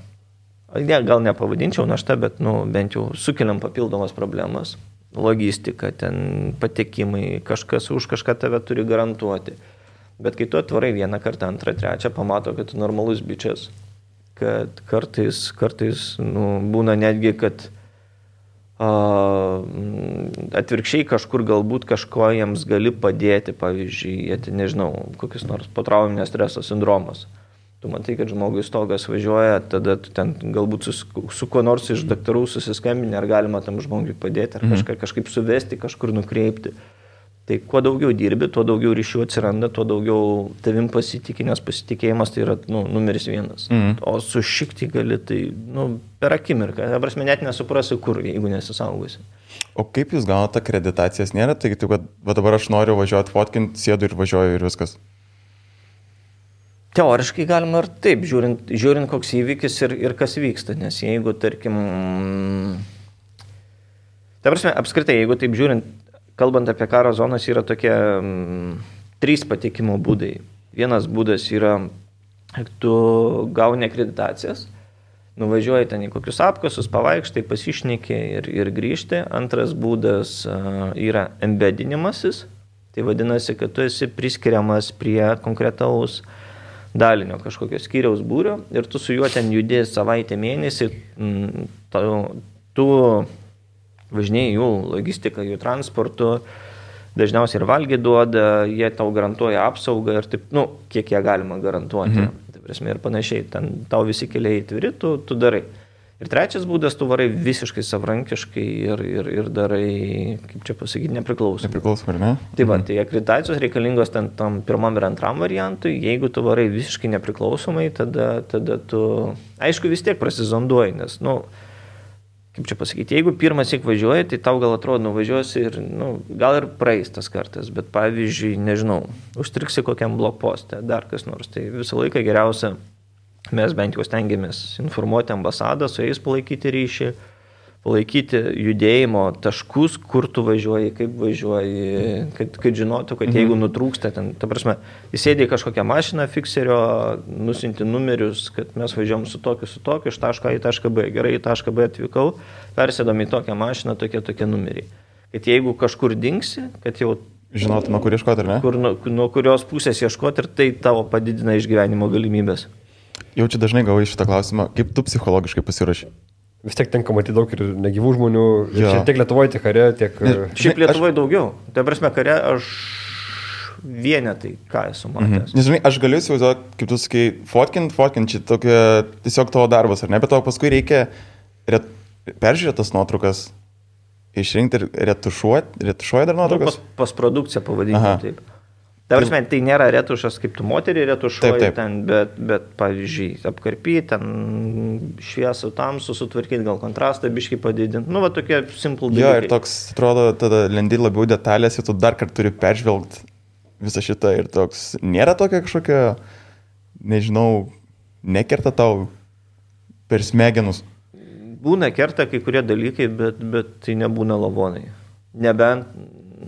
Gal nepavadinčiau našta, bet nu, bent jau sukeliam papildomas problemas. Logistika, ten patekimai, kažkas už kažką tave turi garantuoti. Bet kai tu atvarai vieną kartą, antrą, trečią, pamato, kad tu normalus bičias. Kad kartais nu, būna netgi, kad atvirkščiai kažkur galbūt kažko jiems gali padėti, pavyzdžiui, nežinau, kokius nors potrauminio streso sindromas. Tu matai, kad žmogui stogas važiuoja, tada tu ten galbūt su kuo nors iš daktarų susiskambini, ar galima tam žmogui padėti, ar kažkaip suvesti, kažkur nukreipti. Tai kuo daugiau dirbi, tuo daugiau ryšių atsiranda, tuo daugiau tavim pasitikė, nes pasitikėjimas tai yra numeris vienas. O sušikti gali tai per akimirką. Prasme, net nesuprasi, kur, jeigu nesisaugosi. O kaip jūs gaunate akreditacijas? Nėra tai, kad dabar aš noriu važiuoti fotkinti, sėdu ir važiuoju ir viskas? Teoriškai galima ir taip, žiūrint koks įvykis ir kas vyksta. Nes jeigu, tarkim... Ta prasme, apskritai, jeigu taip žiūrint, kalbant apie karo zonas, yra tokie 3 patekimo būdai. Vienas būdas yra, tu gauni akreditacijas, nuvažiuoji ten į kokius apkasus, pavaikštai, pasišneki ir grįžti. Antras būdas yra embedinimasis, tai vadinasi, kad tu esi priskiriamas prie konkretaus dalinio kažkokio skyriaus būrio ir tu su juo ten judės savaitę mėnesį, tu važinėjai jų logistiką, jų transportu, dažniausiai ir valgį duoda, jie tau garantuoja apsaugą ir taip, kiek jie galima garantuoti, tai prasme ir panašiai, ten tau visi keliai atviri, tu darai. Ir trečias būdas, tu varai visiškai savarankiškai ir darai, kaip čia pasakyti, nepriklausomai. Nepriklausomai, ar ne? Tai va, tai akreditacijos reikalingos ten tam pirmam ir antram variantui, jeigu tu varai visiškai nepriklausomai, tada tu, aišku, vis tiek prasizonduoji, nes, kaip čia pasakyti, jeigu pirmas įk važiuoji, tai tau gal atrodo nuvažiuosi ir, gal ir praeis tas kartas, bet pavyzdžiui, nežinau, užtriksi kokiam blokposte, dar kas nors, tai visą laiką geriausia, mes bent jau stengiamės informuoti ambasadą, su jais palaikyti ryšį, palaikyti judėjimo taškus, kur tu važiuoji, kaip važiuoji, kad žinotų, kad jeigu nutrūksta ten, ta prasme, įsėdė kažkokią mašiną fikserio, nusinti numerius, kad mes važiuojam su tokiu, iš taško A į tašką B, gerai, į tašką B atvykau, persėdom į tokią mašiną, tokie numeriai. Kad jeigu kažkur dingsi, kad jau žinotume, kur ieškoti, ar ne? Nuo kurios pusės ieškoti ir tai tavo padidina išgyvenimo galimybės. Jau čia dažnai gavai šitą klausimą, kaip tu psichologiškai pasiruoši? Vis tiek tenka matyti daug ir negyvų žmonių, tiek Lietuvoje, tiek kare, tiek... Šiaip Lietuvoje daugiau. Tai prasme, kare aš vienetai, ką esu matęs. Nežinai, aš galiu įsivaizduoti, kaip tu sakai, fotkint, čia tokia tiesiog tavo darbas, ar ne, bet tau paskui reikia peržiūrėti tas nuotraukas, išrinkti ir retušuoji dar nuotraukas? Postprodukcija pavadinti taip. Ta prasme, tai nėra retušas, kaip tu moterį retušuoji taip. Ten, bet pavyzdžiui, apkarpyti, ten šviesų tamsų sutvarkyti, gal kontrastą biškai padidinti. Va tokie simple dalykai. Jo, ir toks, atrodo, tada lendi labiau detalės ir tu dar kartą turi peržvelgti visą šitą ir toks, nėra tokia kažkokia, nežinau, nekerta tau per smegenus. Būna kerta kai kurie dalykai, bet tai nebūna lavonai. Nebent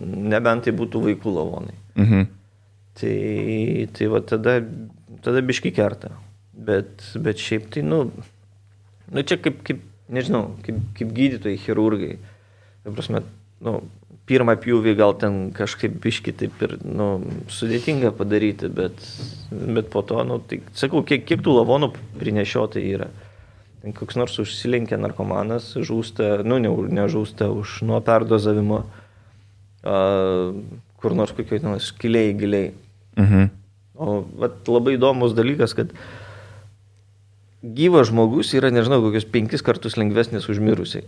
nebent tai būtų vaikų lavonai. Tai va tada biški kerta. Bet šiaip tai, čia kaip nežinau, kaip gydytojai, chirurgai. Tai prasme, pirmą pjūvį gal ten kažkaip biški taip ir, sudėtinga padaryti, bet po to, tai sakau, kiek tų lavonų prinešiotai yra. Ten koks nors užsilenkia narkomanas, žūsta, nežūsta nuo perdozavimo, kur nors kokioj giliai. O labai įdomus dalykas, kad gyvas žmogus yra, nežinau, kokius 5 kartus lengvesnis už mirusiai.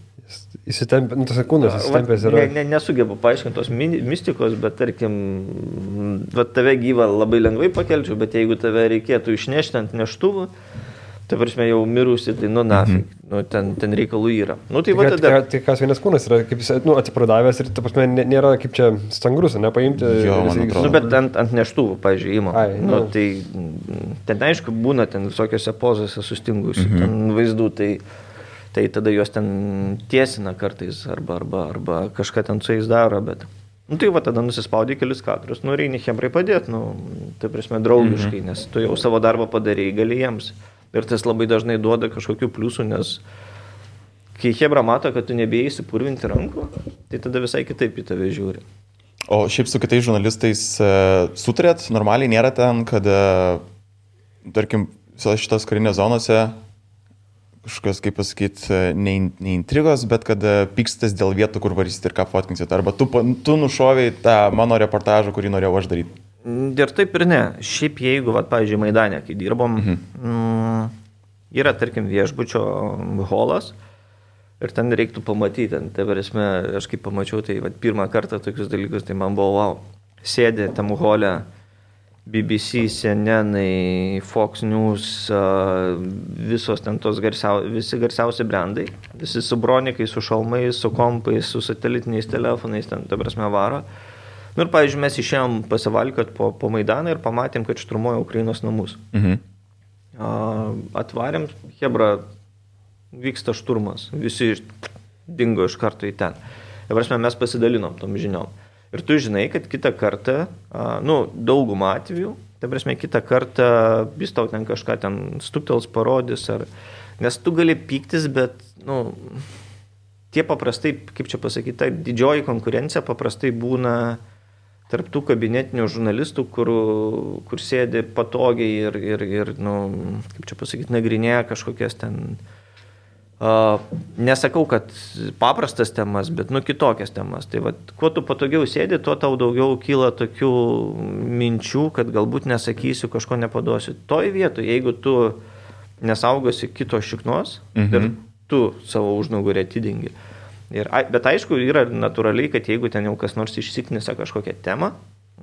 Įsitempė, tas kūnas įsitempęs yra. Nesugebu paaiškinti tos mistikos, bet tarkim, tave gyvą labai lengvai pakelčiau, bet jeigu tave reikėtų išnešti ant neštuvų, tai prasme jau mirusi, tai nafik, ten reikalų yra. Tai kas vienas kūnas yra, kaip jis, atsipradavęs ir, ta prasme, nėra kaip čia stangrus, nepaimti. Bet ant neštuvų, pavyzdžiui, įma. Tai ten aišku būna ten visokiose pozose sustingusių ten vaizdų, tai tada juos ten tiesina kartais arba kažką ten su jais daro, bet... Tai tada nusispaudė kelius kadrus, reini chebrai padėti, tai prasme draugiškai, nes tu jau savo darbą padarėjai, gali jiems. Ir tas labai dažnai duoda kažkokių pliusų, nes kai chebra mato, kad tu nebėjai įsipurvinti rankų, tai tada visai kitaip į tave žiūri. O šiaip su kitais žurnalistais sutarėt, normaliai nėra ten, kad, tarkim, šitos karinės zonose kažkokios, kaip pasakyti, ne intrigos, bet kad pykstas dėl vietų, kur varysit ir ką fotkinsit. Arba tu nušoviai tą mano reportažą, kurį norėjau aš daryti. Ir taip ir ne. Šiaip jeigu, pavyzdžiui, Maidane, kai dirbom, yra, tarkim, viešbučio holas ir ten reiktų pamatyti. Tai varėsme, aš kaip pamačiau, tai pirmą kartą tokius dalykus, tai man buvo wow. Sėdė tam hole BBC, CNN, Fox News, visos ten tos visi garsiausi brandai, visi su bronikai, su šalmais, su kompais, su satelitiniais telefonais, ten, ta prasme, varo. Ir, pavyzdžiui, mes išėjom pasivalkiot po Maidaną ir pamatėm, kad šturmuoja Ukrainos namus. Atvarėm, chebra, vyksta šturmas, visi dingo iš karto į ten. Ir, prasme, mes pasidalinom tom žiniom. Ir tu žinai, kad kitą kartą, daugumą atvejų, tai prasme, kitą kartą vis tau ten kažką ten stuktels parodys, nes tu gali pyktis, bet, tie paprastai, kaip čia pasakyti, ta didžioji konkurencija paprastai būna tarp tų kabinetinių žurnalistų, kur sėdi patogiai ir kaip čia pasakyti, nagrinėja kažkokias ten, nesakau, kad paprastas temas, bet kitokias temas. Tai kuo tu patogiau sėdi, tuo tau daugiau kyla tokių minčių, kad galbūt nesakysiu, kažko nepaduosiu. Toj vietoj, jeigu tu nesaugosi kito šiknos ir tu savo užnugarį atidengi. Bet aišku, yra natūraliai, kad jeigu ten jau kas nors išsiknisa kažkokią temą,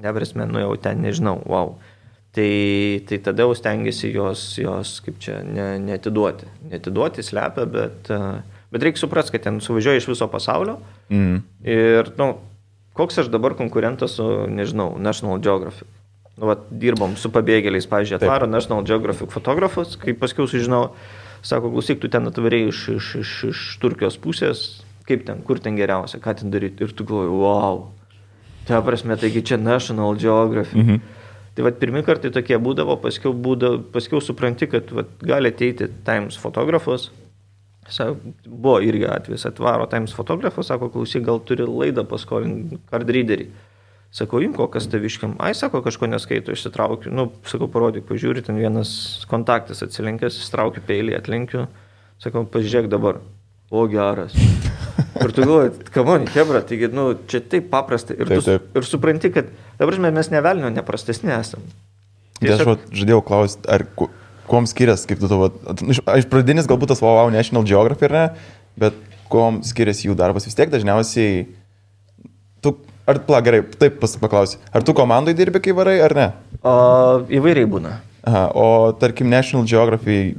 neprasme, jau ten nežinau, wow, tai tada jau stengiasi jos kaip čia, neatiduoti. Neatiduoti, slepia, bet reikia suprasti, kad ten suvažiuoja iš viso pasaulio ir, koks aš dabar konkurentas su, nežinau, National Geographic. Dirbom su pabėgėliais, pavyzdžiui, atvaro National Geographic fotografus, kai paskiau sužinau, sako, klausyk, tu ten atvarėjai iš Turkijos pusės, kaip ten, kur ten geriausia, ką ten daryti. Ir tu galvoji, wow, tai prasme, taigi čia National Geographic. Tai pirmi kartai tokie būdavo, paskiau supranti, kad gali ateiti Times fotografas. Buvo irgi atvejis, atvaro Times fotografas, sako, klausyk, gal turi laidą paskolinti card readerį. Sako, imko, kas taviškiam. Sako, kažko neskaito, išsitraukiu. Sako, parodyk, pažiūri, ten vienas kontaktas atsilenkęs, ištraukiu peilį, atlenkiu. Sako, pažiūrėk dabar. O, geras. Ir tu galvoji, kamoni, chebra, taigi, čia taip paprasta. Ir supranti, kad, dabar mes nevelnio neprastesni esam. Aš žadėjau klausti, kuom skiriasi, kaip tu to, iš pradinis galbūt tas wow National Geographic, ar ne, bet kuom skiriasi jų darbas vis tiek dažniausiai, gerai, taip paklausi, ar tu komandai dirbi, kai varai, ar ne? Įvairiai būna. O tarkim National Geographic,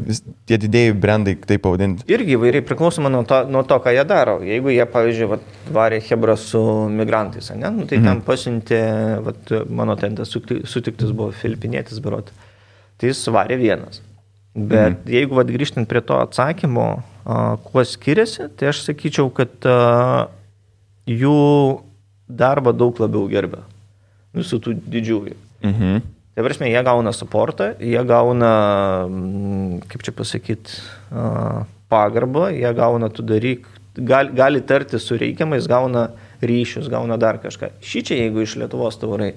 tie didėjai brandai, taip pavadinti. Irgi įvairiai priklausoma nuo to, ką jie daro. Jeigu jie, pavyzdžiui, varė chebra su migrantais, tai ten pasiuntė, mano tentas sutiktas buvo filipinietis berot, tai jis varė vienas. Bet jeigu grįžtant prie to atsakymo, kuo skiriasi, tai aš sakyčiau, kad jų darbą daug labiau gerbia. Visų tų didžiųjų. Tai prasme, jie gauna supportą, jie gauna, kaip čia pasakyti, pagarbą, jie gauna tu daryk, gali tarti su reikiamais, gauna ryšius, gauna dar kažką. Šičia, jeigu iš Lietuvos tavarai.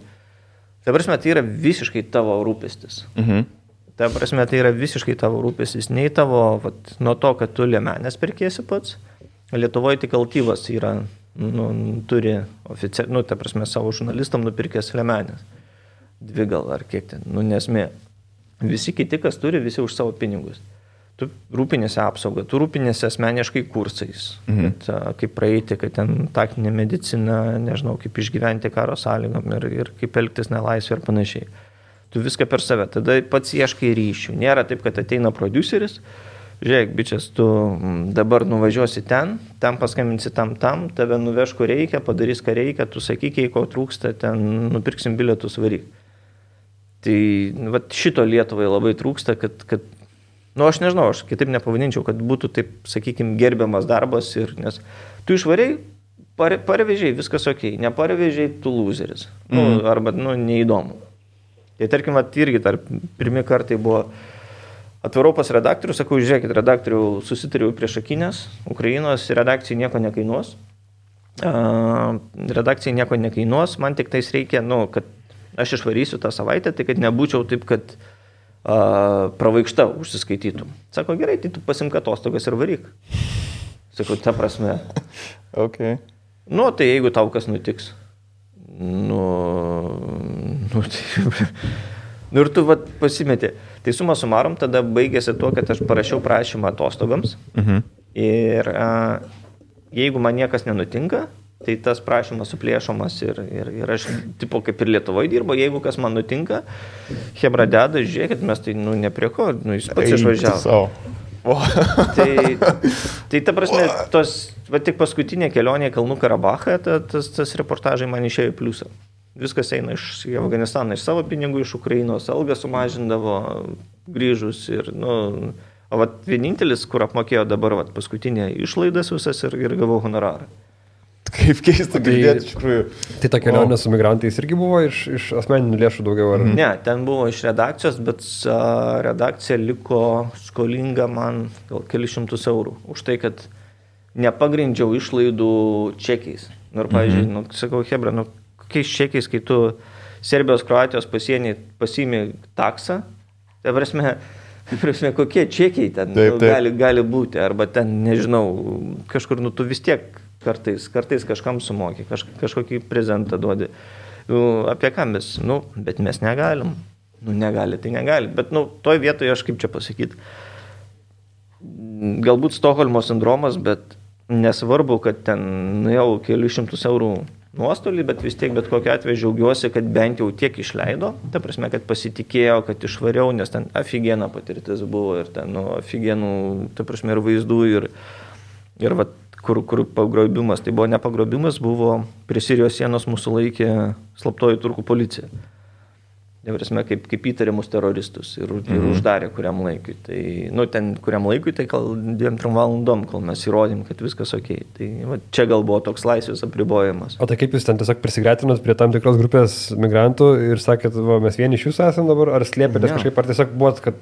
Tai prasme, tai yra visiškai tavo rūpestis. Tai prasme, tai yra visiškai tavo rūpestis. Nei tavo, nuo to, kad tu liemenės perkėsi pats. Lietuvoje tik Altyvas yra, turi oficialiai, tai prasme, savo žurnalistam nupirkęs liemenės. 2 gal ar kiek ten, nesmė. Visi kiti, kas turi, visi už savo pinigus. Tu rūpinėsi apsaugą, tu rūpinėsi asmeniškai kursais, kad, kaip praeiti, kad ten taktinė medicina, nežinau, kaip išgyventi karo sąlygom ir kaip elgtis nelaisvė ir panašiai. Tu viską per save, tada pats ieškai ryšių. Nėra taip, kad ateina prodiuseris, žiūrėk, bičias, tu dabar nuvažiuosi ten paskambinsi tam, tave nuveš, kur reikia, padarys, ką reikia, tu sakyk, jei ko trūksta, ten nupirksim bilietus, varyk. Tai šito Lietuvai labai trūksta, kad aš nežinau, aš kitaip nepavadinčiau, kad būtų taip, sakykime, gerbiamas darbas, nes tu išvariai, parvežiai, viskas ok, neparvežiai, tu loseris, arba neįdomu. Tai tarkim, irgi pirmi kartai buvo atvarau pas redaktorių, sakau, žiūrėkit, redaktorių susitariau prieš akinės, Ukrainos redakcijai nieko nekainuos, man tik tais reikia, kad aš išvarysiu tą savaitę, tai kad nebūčiau taip, kad pravaikšta užsiskaitytum. Sako, gerai, tai tu pasimk atostogas ir varyk. Sakau, ta prasme. Okay. Tai jeigu tau kas nutiks. Ir tu pasimeti. Tai suma sumarom, tada baigėsi tuo, kad aš parašiau prašymą atostogams. Ir jeigu man niekas nenutinka, tai tas prašymas suplėšomas ir aš, tipo, kaip ir Lietuvoje dirbo, jeigu kas man nutinka, hebra deda, žiūrėkit, mes tai, ne prie ko, jis pats išvažiavo. Tai ta prasme, tik paskutinė kelionė į Kalnų Karabachą, tas reportažai man išėjo į pliusą. Viskas eina iš Afganistaną, iš savo pinigų, iš Ukrainos, algą sumažindavo, grįžus ir, vienintelis, kur apmokėjo dabar, paskutinė išlaidas visas ir gavau honorarą. Kaip keista girdėti, iš tikrųjų. Tai ta kelionė su migrantais irgi buvo iš asmeninių lėšų daugiau? Ar? Ne, ten buvo iš redakcijos, bet redakcija liko skolinga man gal kelišimtus eurų. Už tai, kad nepagrindžiau išlaidų čekiais. Ir, pavyzdžiui, sakau, hebra, kokiais čekiais, kai tu Serbijos, Kroatijos pasienį pasiimi taksą, tai prasme, kokie čekiai ten gali būti, arba ten, nežinau, kažkur, tu vis tiek kartais kažkam sumoki, kažkokį prezentą duodi. Apie ką mes? Bet mes negalim. Negali, tai negali. Bet, toj vietoje aš kaip čia pasakyti, galbūt Stokholmo sindromas, bet nesvarbu, kad ten nuėjau kelius šimtus eurų nuostolį, bet vis tiek, bet kokiu atveju džiaugiuosi, kad bent jau tiek išleido. Ta prasme, kad pasitikėjau, kad išvariau, nes ten aфигена patirtis buvo ir ten, aфигенų, ta prasme, ir vaizdų, ir kur pagrobimas, tai buvo ne pagrobimas, buvo prie Sirijos sienos mūsų laikė slaptoji turkų policija. Prasme, kaip įtariamus teroristus ir uždarė kuriam laikui. Tai, ten kuriam laikui, tai gal 2-3 valandom, kol mes įrodėm, kad viskas ok. Tai čia gal buvo toks laisvės apribojimas. O tai kaip jūs ten tiesiog prisigretinot prie tam tikros grupės migrantų ir sakėt, mes vieni iš jūsų esam dabar, ar slėpėtės kažkaip, ar tiesiog buvot, kad,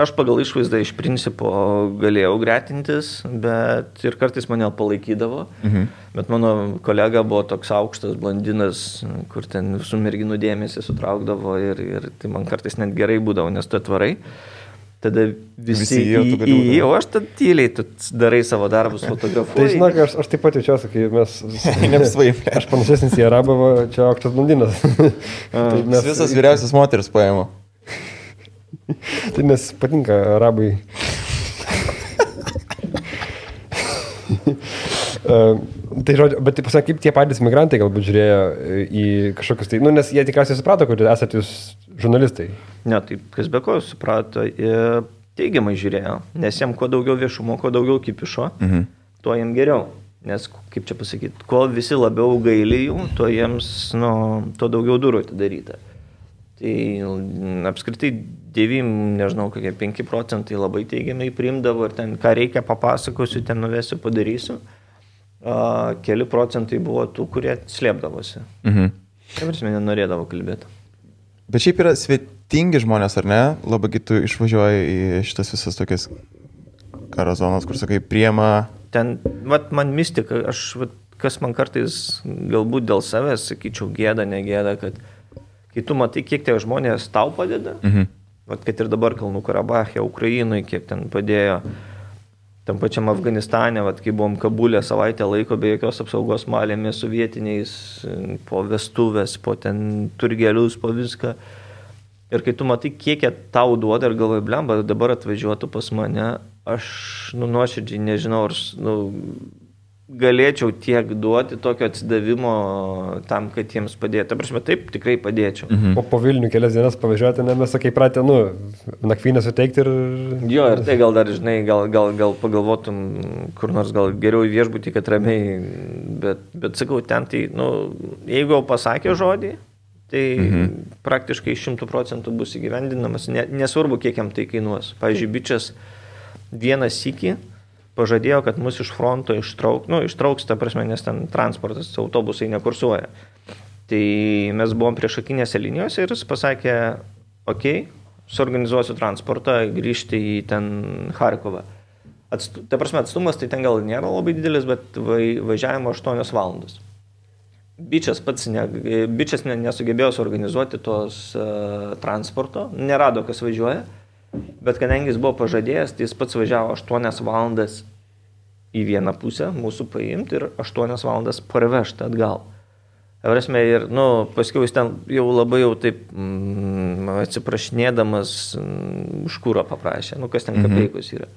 Aš pagal išvaizdą iš principo galėjau gretintis, bet ir kartais mane palaikydavo. Bet mano kolega buvo toks aukštas blondinas, kur ten visų merginų dėmesį sutraukdavo ir tai man kartais net gerai būdavo, nes tu atvarai. Tada visi o aš tad tyliai, tu darai savo darbus, fotografuoji. Tai žinok, aš taip pat jaučiuosi, kai mes... Aš panašesnis į Arabą, čia aukštas blondinas. Visas vyriausias moteris paėmė. Tai nes patinka Arabai. Tai žodžiu, bet taip pasakyk, kaip tie patys migrantai galbūt žiūrėjo į kažkokius tai, nes jie tikriausiai suprato, kad esate jūs žurnalistai. Ne, tai kas be ko suprato, teigiamai žiūrėjo, nes jiem kuo daugiau viešumo, kuo daugiau kipišo, tuo jiem geriau. Nes, kaip čia pasakyti, kuo visi labiau gaili jų, tuo jiems, tuo daugiau durų atidaryta. Tai apskritai 5% labai teigiamai priimdavo ir ten, ką reikia papasakosiu, ten nuvesiu, padarysiu. keli procentai buvo tų, kurie slėpdavosi. Prasme, nenorėdavo kalbėti. Bet šiaip yra svetingi žmonės, ar ne? Labai tu išvažiuoji į šitas visas tokias karo zonas, kur sakai, priema. Ten, man mistika, kas man kartais galbūt dėl savęs, sakyčiau, gėda, negėda, kad kai tu matai, kiek tie žmonės tau padeda, kad ir dabar Kalnų Karabache, Ukrainoje, kiek ten padėjo, tam pačiam Afganistane, kai buvom Kabulė savaitę laiko be jokios apsaugos malėmis su vietiniais, po vestuvės, po ten turgelius, po viską. Ir kai tu matai, kiek jie tau duoda ir galvoji, blemba, dabar atvažiuotų pas mane, aš nuoširdžiai nežinau, ar galėčiau tiek duoti tokio atsidavimo tam, kad jiems padėtų. Prasme, taip, tikrai padėčiau. Po Vilnių kelias dienas pavažiuoti, mes sakai pratę, nakvynę suteikti ir... Jo, ir tai gal dar, žinai, gal pagalvotum, kur nors gal geriau į viešbutį, kad ramiai, bet sakau, ten tai, jeigu jau pasakė žodį, tai praktiškai 100% bus įgyvendinamas, nesvarbu, kiek jam tai kainuos. Pavyzdžiui, bičias vieną sykį pažadėjo, kad mus iš fronto ištrauks, ta prasme, nes ten transportas, autobusai nekursuoja. Tai mes buvom priešakinėse linijose ir jis pasakė, suorganizuosiu transportą, grįžti į ten Charkovą. Ta prasme, atstumas tai ten gal nėra labai didelis, bet važiavimo 8 valandos. Bičias nesugebėjo suorganizuoti tos transporto, nerado, kas važiuoja. Bet kadangi jis buvo pažadėjęs, tai jis pats važiavo 8 valandas į vieną pusę mūsų paimti ir 8 valandas parvežti atgal. Prasme, ir paskiau jis ten jau labai taip atsiprašinėdamas už kūrą paprašė, kas ten kapeikos yra.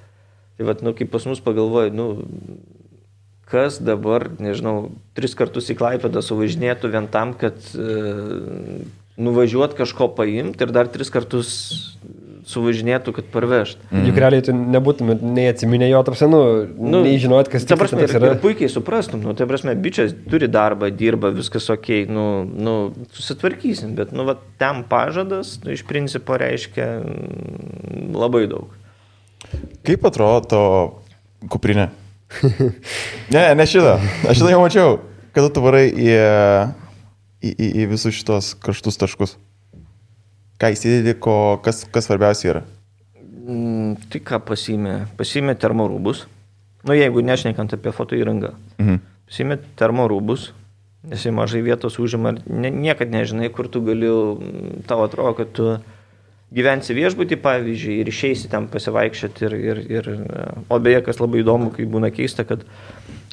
Tai kai pas mus pagalvoju, kas dabar, nežinau, 3 kartus į Klaipėdą suvažinėtų vien tam, kad nuvažiuot kažko paimti ir dar 3 kartus suvažinėtų, kad parvežt. Juk realiai tu nebūtum nei atsiminę jo, nei žinot, kas tas yra. Ir puikiai suprastum, tai prasme, bičias turi darbą, dirba, viskas okei, susitvarkysim, bet ten pažadas, iš principo reiškia labai daug. Kaip atrodo to kuprinė? Ne šitą. Aš šitą jau mačiau, kada tu varai į visus šitos karštus taškus. Ką įsidėdi, kas svarbiausia yra? Tai ką pasiėmė termorūbus. Jeigu nešnekant apie foto įrangą. Pasiėmė termorūbus, nes jie mažai vietos užima. Niekad nežinai, kur tu gali, tau atrodo, kad tu gyvensi viešbutį, pavyzdžiui, ir išeisi ten pasivaikščioti. O beje, kas labai įdomu, kai būna keista, kad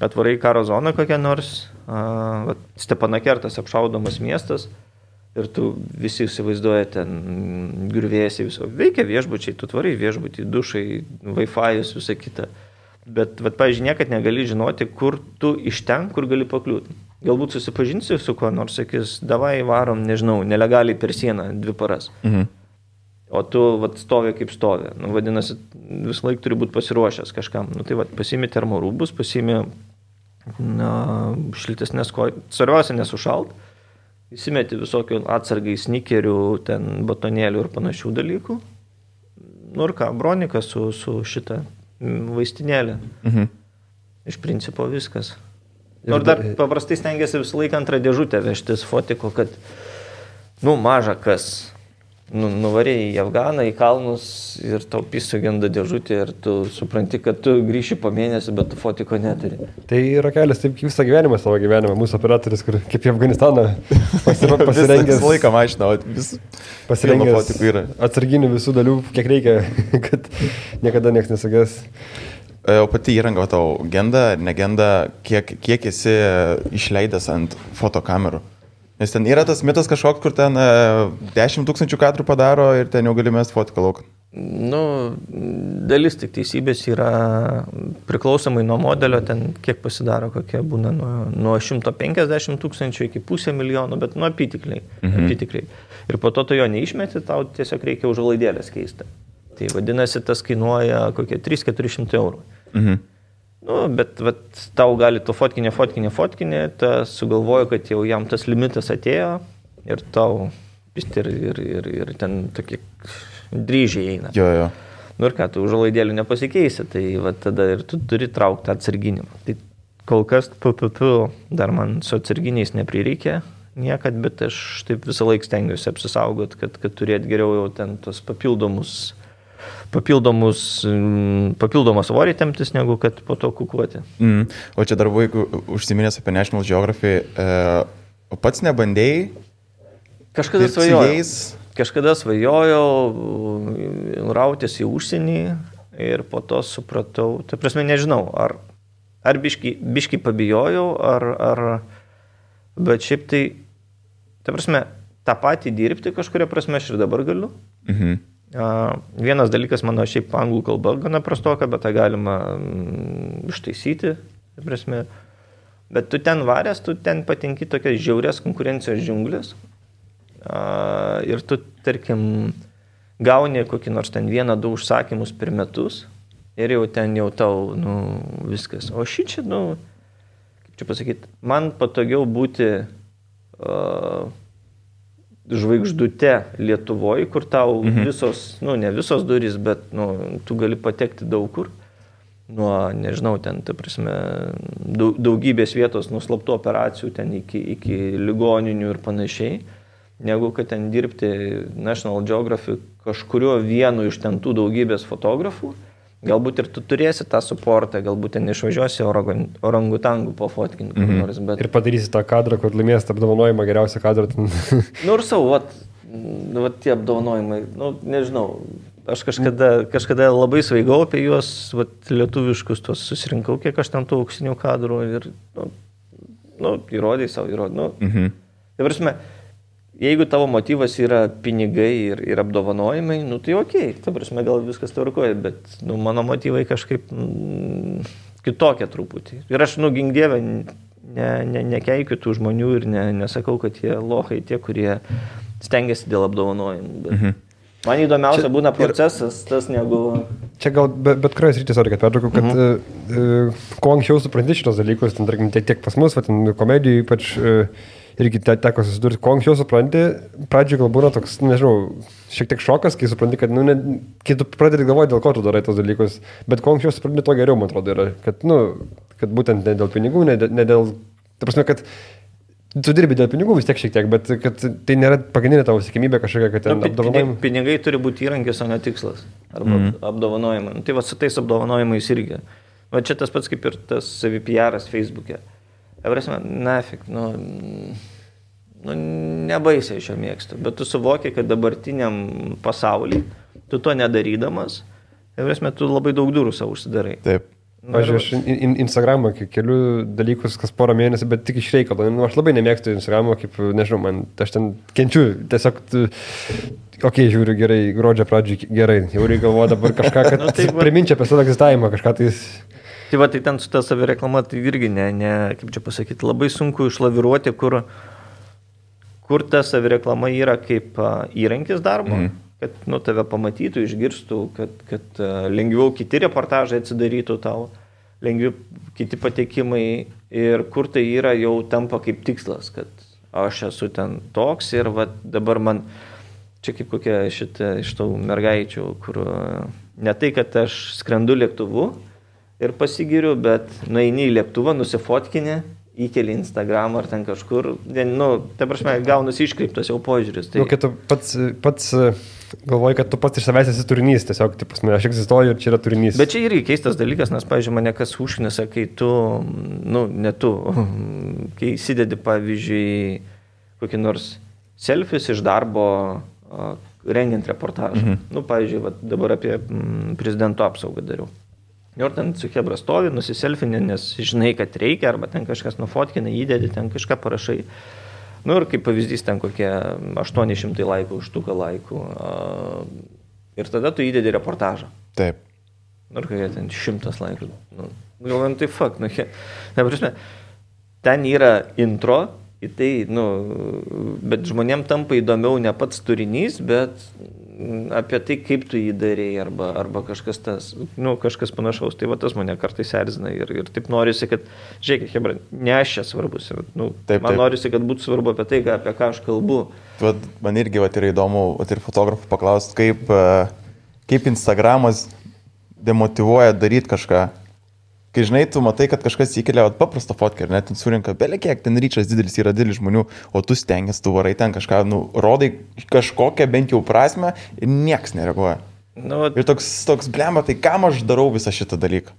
atvarai karo zoną kokią nors, Stepanakertas apšaudomas miestas, ir tu visi įsivaizduoja ten griuvėsiai viso. Veikia viešbučiai, tu tvarai viešbutį, dušai, Wi-Fi'us, visą kitą. Bet, pavyzdžiui, niekad negali žinoti, kur tu iš ten, kur gali pakliūti. Galbūt susipažinsi su kuo nors, sakys, davai varom, nežinau, nelegaliai per sieną 2 paras. O tu stovi kaip stovi. Vadinasi, vis laik turi būti pasiruošęs kažkam. Pasiimi termorūbus, pasiimi šiltesnės kojas. Svarbiausia nesušalt. Įsimeti visokių atsargai snikerių, ten batonėlių ir panašių dalykų. Ir ką, bronika su šitą vaistinėlę. Iš principo viskas. Nors dar paprastai stengiasi visą laiką antrą dėžutę vežtis fotiko, kad, maža kas. Nuvarėjai į Afganą, į kalnus ir tau sugenda dėžutė ir tu supranti, kad tu grįši po mėnesį, bet tu fotiko neturi. Tai yra kelias, taip visą gyvenimą savo gyvenimą. Mūsų operatorius, kur kaip į Afganistaną pasirengęs. Visą laiką mašina, pasirengęs atsarginių visų dalių, kiek reikia, kad niekada nieks nesugės. O pati įranga tau genda, negenda, kiek esi išleidęs ant fotokamerų? Nes ten yra tas mitas kažkoks, kur ten 10 000 kadrų padaro ir ten jau gali mest fotiką lauką. Dalis tik teisybės yra priklausomai nuo modelio, ten kiek pasidaro, kokie būna nuo 150 000 iki 500 000, bet apytikliai. Ir po to tu jo neišmeti, tau tiesiog reikia užuolaidėlės keisti. Tai vadinasi, tas kainuoja kokie 300-400 eurų. Bet tau gali to fotkinė, tas sugalvojo, kad jau jam tas limitas atėjo ir tau ir ten tokie dryžiai eina. Ir ką, tu užuolaidėlių nepasikeisi, tai tada ir tu turi traukti atsarginimą. Tai kol kas dar man su atsarginiais neprireikė niekad, bet aš taip visą laiką stengiuosi apsisaugot, kad turėt geriau jau ten tos papildomą svorį temptis, negu kad po to kukuoti. O čia dar vaikų užsiminęs apie National Geography, o pats nebandėjai? Kažkada svajojau rautis į užsienį ir po to supratau, tai prasme nežinau, ar biški pabijojau, bet šiaip tai prasme, tą patį dirbti kažkuria prasme aš ir dabar galiu. Vienas dalykas mano šiaip anglų kalba gana prastoka, bet tą galima ištaisyti, prasme. Bet tu ten varęs, tu ten patenki tokias žiaurės konkurencijos džiunglės ir tu, tarkim, gauni kokį nors ten 1-2 užsakymus per metus ir jau ten jau tau, viskas. O šičia, kaip čia pasakyti, man patogiau būti žvaigždute Lietuvoje, kur tau visos, ne visos durys, bet tu gali patekti daug kur. Nuo, nežinau, ten, ta prasme, daugybės vietos nuslaptų operacijų ten iki ligoninių ir panašiai, negu kad ten dirbti National Geography kažkurio vienu iš ten tų daugybės fotografų. Galbūt ir tu turėsi tą suportą, galbūt ten išvažiuosi orangutangų pofotkinti. Bet... Ir padarysi tą kadrą, kur laimės tą apdovanojimą, geriausią kadrą. Ir savo, tie apdovanojimai, nežinau, aš kažkada labai svaigau apie juos, lietuviškus tos susirinkau, kiek aš ten tų auksinių kadrų ir, įrodai savo. Tai prasme, jeigu tavo motyvas yra pinigai ir apdovanojimai, tai okei, ta prasme, gal viskas tvarkoja, bet mano motyvai kažkaip kitokie truputį. Ir aš, gink dievę, nekeikiu tų žmonių ir nesakau, kad jie lohai tie, kurie stengiasi dėl apdovanojimų. Bet man įdomiausia būna procesas, tas negu... Čia gal bet kurioje srityje, kad pertraukau, kad kuo anksčiau supranti šitos dalykus, ten, tarkim, tiek pas mus, komedijų ypač... Irgi teko susidurti, kuo anksčiau supranti, pradžioje gal būna toks, nežinau, šiek tiek šokas, kai supranti, kad, kai tu pradedi galvoti, dėl ko tu darai tos dalykus, bet kuo anksčiau supranti, to geriau, man atrodo, yra, kad būtent ne dėl pinigų, ne dėl, ta prasme, kad tu dirbi dėl pinigų vis tiek šiek tiek, bet kad tai nėra pagrindinė tavo siekiamybė kažkokia, kad ten apdovanojimai. Pinigai turi būti įrankis, o ne tikslas, arba apdovanojimai. Tai su tais apdovanojimais irgi. Va čia tas pats kaip ir tas savi-PR'as Facebook'e. Nafik, nebaisiai šio mėgstu, bet tu suvoki, kad dabartiniam pasaulyje, tu to nedarydamas, tu labai daug durų savo užsidarai. Taip. Aš Instagramą keliu dalykus kas porą mėnesių, bet tik iš reikalo. Aš labai nemėgstu Instagramą, kaip, nežinau, aš ten kenčiu, tiesiog, žiūriu gerai, gruodžio pradžiai gerai, jau reikia galvoju dabar kažką, kad priminčia apie savo egzistavimą, kažką tais... Tai tai ten su ta savireklama, tai irgi kaip čia pasakyti, labai sunku išlaviruoti, kur ta savireklama yra kaip įrankis darbo, kad tave pamatytų, išgirstų, kad lengviau kiti reportažai atsidarytų tau, lengviau kiti patekimai ir kur tai yra jau tampa kaip tikslas, kad aš esu ten toks ir dabar man, čia kaip kokia iš tų mergaičių, kur ne tai, kad aš skrendu lėktuvu, ir pasigiriu, bet nueini į lėktuvą, nusifotkinė, įkeli Instagram ar ten kažkur, ta prasme, gaunasi iškreiptas jau požiūris. Tai... Kai tu pats galvoji, kad tu pats iš savęs esi turinys, tiesiog, aš egzistuoju ir čia yra turinys. Bet čia irgi keistas dalykas, nes, pavyzdžiui, mane kas užknisa, kai tu, kai įsidedi, pavyzdžiui, kokį nors selfies iš darbo rengiant reportažą. Pavyzdžiui, dabar apie prezidento apsaugą dariau. Ir ten su chebra stovi, nusiselfinė, nes žinai, kad reikia, arba ten kažkas nufotkina, įdedi, ten kažką parašai. Ir kaip pavyzdys, ten kokie 800 laikų, užtuką laikų. Ir tada tu įdedi reportažą. Taip. Ir kai ten 100 laikų. Galvojam, tai fuck. Ten yra intro, tai, bet žmonėm tampa įdomiau ne pats turinys, bet apie tai, kaip tu jį darėjai, arba kažkas tas, kažkas panašaus. Tai tas mane kartais erzina ir taip norisi, kad, žiūrėkit, hebra, ne aš čia svarbus. Man norisi, kad būtų svarbu apie tai, apie ką aš kalbu. Man irgi yra įdomu ir fotografų paklausti, kaip Instagramas demotyvuoja daryti kažką. kai žinai, tu matai, kad kažkas įkelia paprastą fotkę ir net ten surinka, belekiek, ten ryčas didelis yra didelis žmonių, o tu stengiasi, tu varai ten kažką, rodai kažkokią bent jau prasme ir nieks nereaguoja. Ir toks blemba, tai kam aš darau visą šitą dalyką?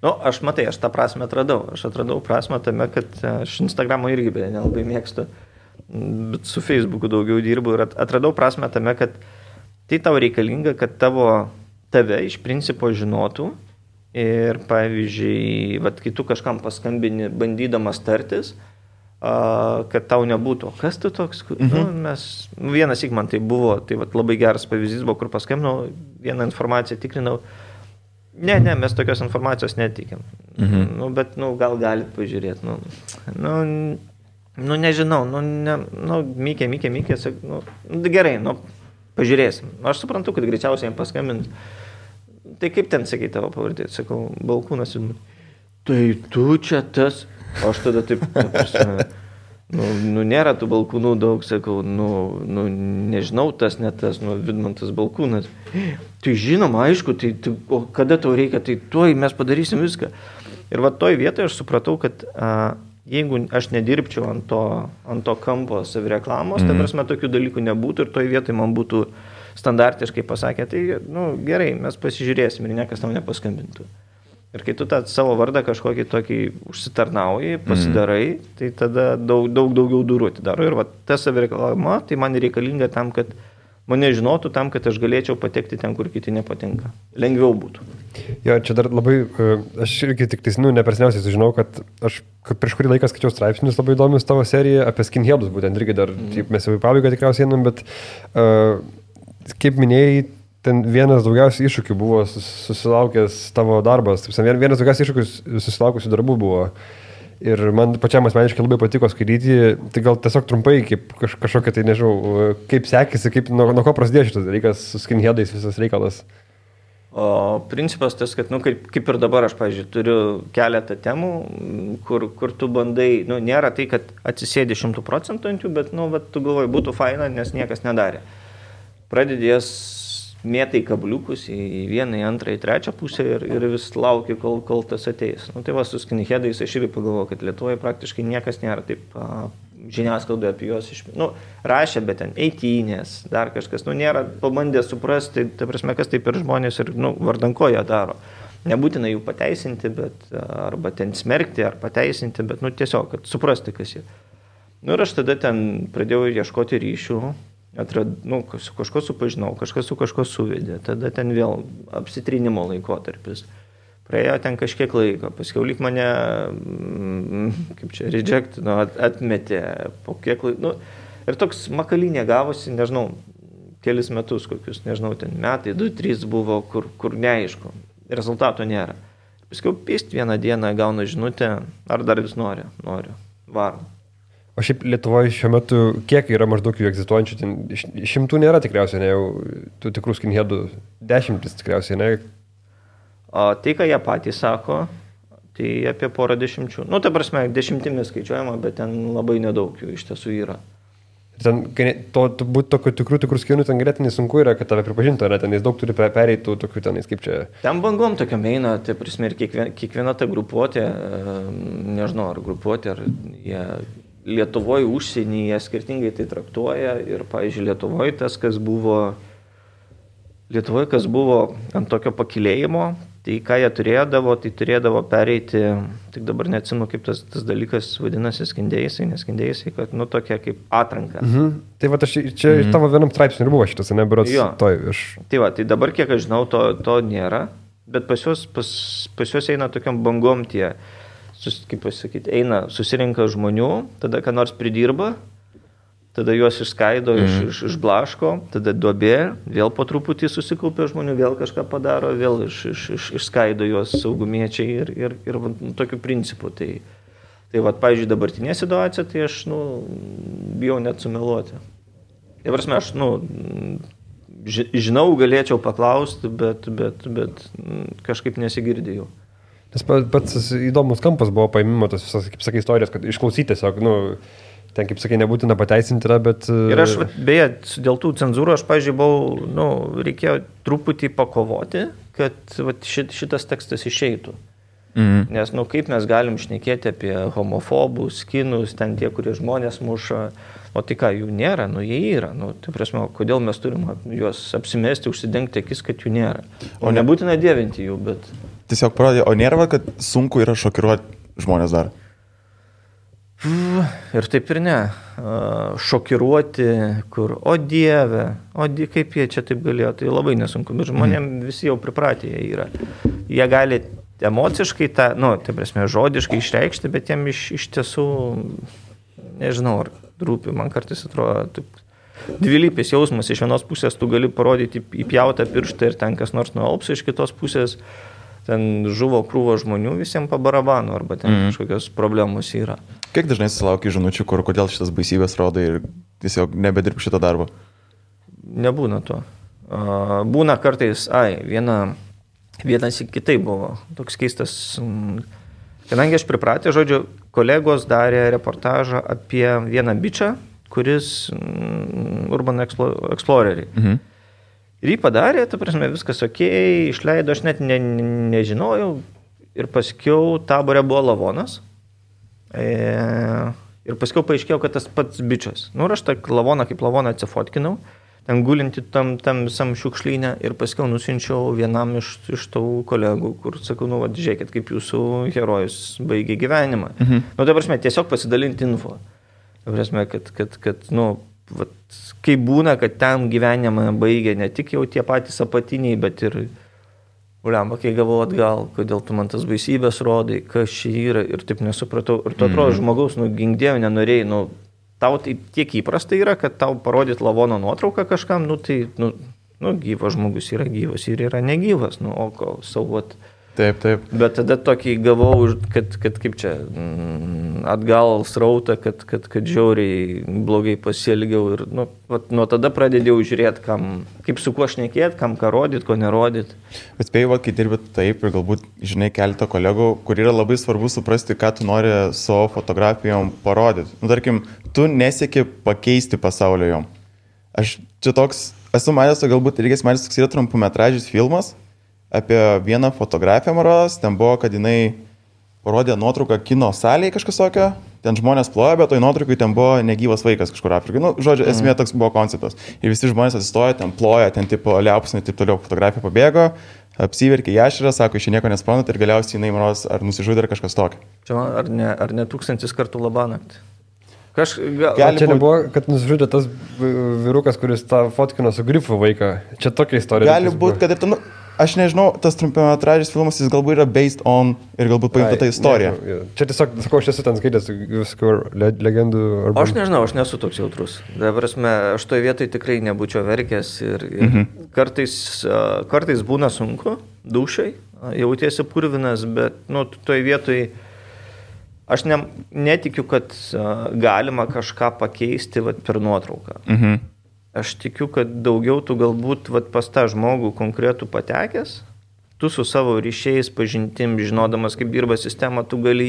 Aš tą prasme atradau. Aš atradau prasme tame, kad aš Instagramo irgi nelabai mėgstu, bet su Facebooku daugiau dirbu ir atradau prasme tame, kad tai tau reikalinga, kad tave iš principo žinotų ir, pavyzdžiui, kai tu kažkam paskambini bandydamas tartis, kad tau nebūtų. Kas tu toks? Vienas man tai buvo, tai labai geras pavyzdys buvo, kur paskambinau, vieną informaciją tikrinau. Ne, mes tokios informacijos netikėm. Bet, gal galit pažiūrėti. Nežinau, Mikė, gerai, pažiūrėsim. Aš suprantu, kad greičiausiai jam paskambins. Tai kaip ten, sakai, tavo pavardė? Sakau, Balkūnas. Tai tu čia tas. Aš tada taip, nėra tų Balkūnų daug, sakau, nežinau, tas, ne tas, Vidmantas Balkūnas. Tai žinoma, aišku, o kada tau reikia, tai tuoj mes padarysim viską. Ir toj vietoje aš supratau, kad jeigu aš nedirbčiau ant to kampo savireklamos, tai prasme tokių dalykų nebūtų ir toj vietoje man būtų standartiškai pasakė, tai gerai, mes pasižiūrėsim ir niekas tam nepaskambintų. Ir kai tu tą savo vardą kažkokį tokį užsitarnauji, pasidarai, tai tada daugiau durų atidaro. Ir ta savireklama, tai man reikalinga tam, kad mane žinotų, tam, kad aš galėčiau patekti ten, kur kiti nepatinka. Lengviau būtų. Jo, čia dar labai, aš irgi tik nepersniausiai sužinau, kad aš prieš kurį laiką skaičiau straipsnius labai įdomius tavo seriją apie skinheadus, būtent irgi dar, mes jau į pabaigą tikriausiai einam, bet kaip minėjai, ten vienas daugiausiai iššūkių buvo susilaukęs tavo darbas, vienas daugiausiai iššūkių susilaukusių darbų buvo. Ir man pačiam asmeniškai labai patiko skaityti, tai gal tiesiog trumpai, kaip kažkokia, tai nežinau, kaip sekėsi, nuo ko prasidėjo šitas dalykas su skinheadais visas reikalas. O principas tas, kad, kaip ir dabar aš, pavyzdžiui, turiu keletą temų, kur tu bandai, nėra tai, kad atsisėdi 100% ant jų, bet, tu galvoji, būtų faina, nes niekas nedarė. Pradedės mėtai kabliukus į vieną, į antrą, į trečią pusę ir vis lauki, kol tas ateis. Tai su skinheadais aš irgi pagalvoju, kad Lietuvoje praktiškai niekas nėra taip žiniasklaidoje apie juos rašė, bet ten eitynės, dar kažkas, nėra pabandę suprasti, ta prasme, kas taip ir žmonės ir vardan ko jie daro. Nebūtina jų pateisinti, bet arba ten smerkti, ar pateisinti, bet tiesiog, kad suprasti, kas jie. Ir aš tada ten pradėjau ieškoti ryšių. Su kažko supažinau, kažkas su kažko suvedė, tada ten vėl apsitrinimo laikotarpis. Praėjo ten kažkiek laiko, paskiau lyg mane, rejectino, atmetė po kiek laiko. Ir toks makalinė gavosi, nežinau, kelis metus kokius, nežinau, ten metai, 2-3 buvo, kur neaišku, rezultato nėra. Paskiau pist vieną dieną gauna žinutę, ar dar vis noriu, varom. O šiaip Lietuvoje šiuo metu kiek yra maždaug jų egzistuojančių, ten 100 nėra tikriausiai, ne jau tų tikrų skinheadų 10 tikriausiai, ne? O tai, ką jie patys sako, tai apie porą 10. Ta prasme, 10 skaičiuojama, bet ten labai nedaug jų iš tiesų yra. Ten būti tokių tikrų skinų, ten ganėtinai sunku yra, kad tave pripažintų, ne? Tenais daug turi pereitų tokių tenais, kaip čia. Ten bangom tokiam eina, tai prasme, ir kiekviena ta grupuotė, nežinau, ar grupuotė, ar jie Lietuvoje, užsienyje skirtingai tai traktuoja ir, pavyzdžiui, Lietuvoje kas buvo ant tokio pakilėjimo, tai ką jie turėdavo pereiti, tik dabar neatsimenu, kaip tas dalykas vadinasi skindėjai, kad, tokia kaip atranka. Tai aš čia tavo vienam straipsniui ir buvo šitas, ne, berods toj iš. Tai dabar, kiek aš žinau, to nėra, bet pas juos eina tokiam bangom tie, kaip pasakyti, susirinka žmonių, tada ką nors pridirba, tada juos išskaido, išblaško, tada duobė, vėl po truputį susikaupia žmonių, vėl kažką padaro, vėl išskaido juos saugumiečiai ir tokiu principu. Tai pavyzdžiui, dabartinė situacija, tai aš, bijau net sumeluoti. Tai prasme, aš, žinau, galėčiau paklausti, bet kažkaip nesigirdėjau. Nes pats įdomus kampas buvo paimimo tos visas, kaip sakai, istorijos, kad išklausyti tiesiog, ten, kaip sakai, nebūtina pateisinti yra, bet... Ir aš, beje, dėl tų cenzūrų, aš, pavyzdžiui, reikėjo truputį pakovoti, kad šitas tekstas išeitų. Nes, kaip mes galim šnekėti apie homofobus, kinus, ten tie, kurie žmonės muša, o tai ką, jų nėra, jie yra. Tai prasme, kodėl mes turim juos apsimesti, užsidengti akis, kad jų nėra. O nebūtina dievinti jų, bet... Tiesiog parodė, o nėra, kad sunku yra šokiruoti žmonės dar? Ir taip ir ne. Šokiruoti, kur, o dieve, kaip jie čia taip galėjo, tai labai nesunku, bet žmonėm visi jau pripratę jie yra. Jie gali emociškai tą, tai prasme, žodiškai išreikšti, bet jiem iš tiesų, nežinau, ar rūpi, man kartais atrodo, taip, dvilypis jausmas, iš vienos pusės tu gali parodyti įpjautą pirštą ir ten kas nors nualps, iš kitos pusės ten žuvo krūvo žmonių, visiems pabarabanu, arba ten kažkokios problemos yra. Kiek dažnai sulaukia žinučių, kodėl šitas baisybės rodo ir tiesiog nebedirb šitą darbą? Nebūna to. Būna kartais, vienas į kitai buvo, toks keistas, kadangi aš pripratė, žodžiu, kolegos darė reportažą apie vieną bičą, kuris Urban Explorerį. Ir jį padarė, ta prasme, viskas okei, išleido, aš net nežinojau ir paskiau Tabore buvo lavonas ir paskiau paaiškėjau, kad tas pats bičas. Ir aš tą lavoną kaip lavoną atsifotkinau, ten gulinti tam visam šiukšlynę ir paskiau nusinčiau vienam iš tų kolegų, kur sakau, žiūrėkit, kaip jūsų herojus baigė gyvenimą. Tai prasme, tiesiog pasidalinti info. Tai prasme, kad kaip būna, kad ten gyvenimą baigė ne tik jau tie patys apatiniai, bet ir, kai gavau atgal, kodėl tu man tas baisybės rodai, kas čia yra ir taip nesupratau. Ir tu atrodo, žmogaus, gink dieve, nenorėjai, tau tai tiek įprasta yra, kad tau parodyt lavono nuotrauką kažkam, gyvas žmogus yra gyvas ir yra negyvas, saugot. Taip. Bet tada tokį gavau, kad kaip čia, atgal srautą, kad žiauriai blogai pasielgiau ir nuo tada pradėjau žiūrėti, kaip su kuo šnekėti, kam ką rodyti, ko nerodyti. Bet spėjau, kai dirbi taip ir galbūt, žinai, keletą kolegų, kur yra labai svarbu suprasti, ką tu nori savo fotografijom parodyti. Tarkim, tu nesieki pakeisti pasaulio jom. Aš čia toks, esu matęs, galbūt irgi matęs, toks yra trumpumetražis filmas apie vieną fotografiją maros, ten buvo, kad jinai parodė nuotrauką kino salėje kažkas tokio, ten žmonės plojo, bet toj nuotraukai ten buvo negyvas vaikas kažkur Afrikai. Žodžiu, esmė toks buvo konceptas. Ir visi žmonės atsistojo, ten plojo, ten tipo liaupsnai, taip toliau, fotografija pabėgo, apsiverkė jaširą, sako, iš nieko nesprantat ir galiausiai jinai maros ar nusižudė ar kažkas tokio. Čia ar ne 1000 kartų labanakt? Čia nebuvo, kad nusižudė tas vyrukas, kuris tą fotkino su grifu vaiką. Čia tokia istorija. Gali būti, kad ir ten... Aš nežinau, tas trumpiametražis filmas, jis galbūt yra based on ir galbūt paimta tą istoriją. Čia tiesiog, sakau, aš esu ten skaitęs viskų legendų. Aš nežinau, aš nesu toks jautrus. Prasme, aš toje vietoje tikrai nebūčiau verkęs ir kartais būna sunku, dušai, jautiesi purvinas, bet toje vietoje aš netikiu, kad galima kažką pakeisti per nuotrauką. Aš tikiu, kad daugiau tu galbūt pas tą žmogų konkretų patekęs, tu su savo ryšiais, pažintim, žinodamas, kaip dirba sistema, tu gali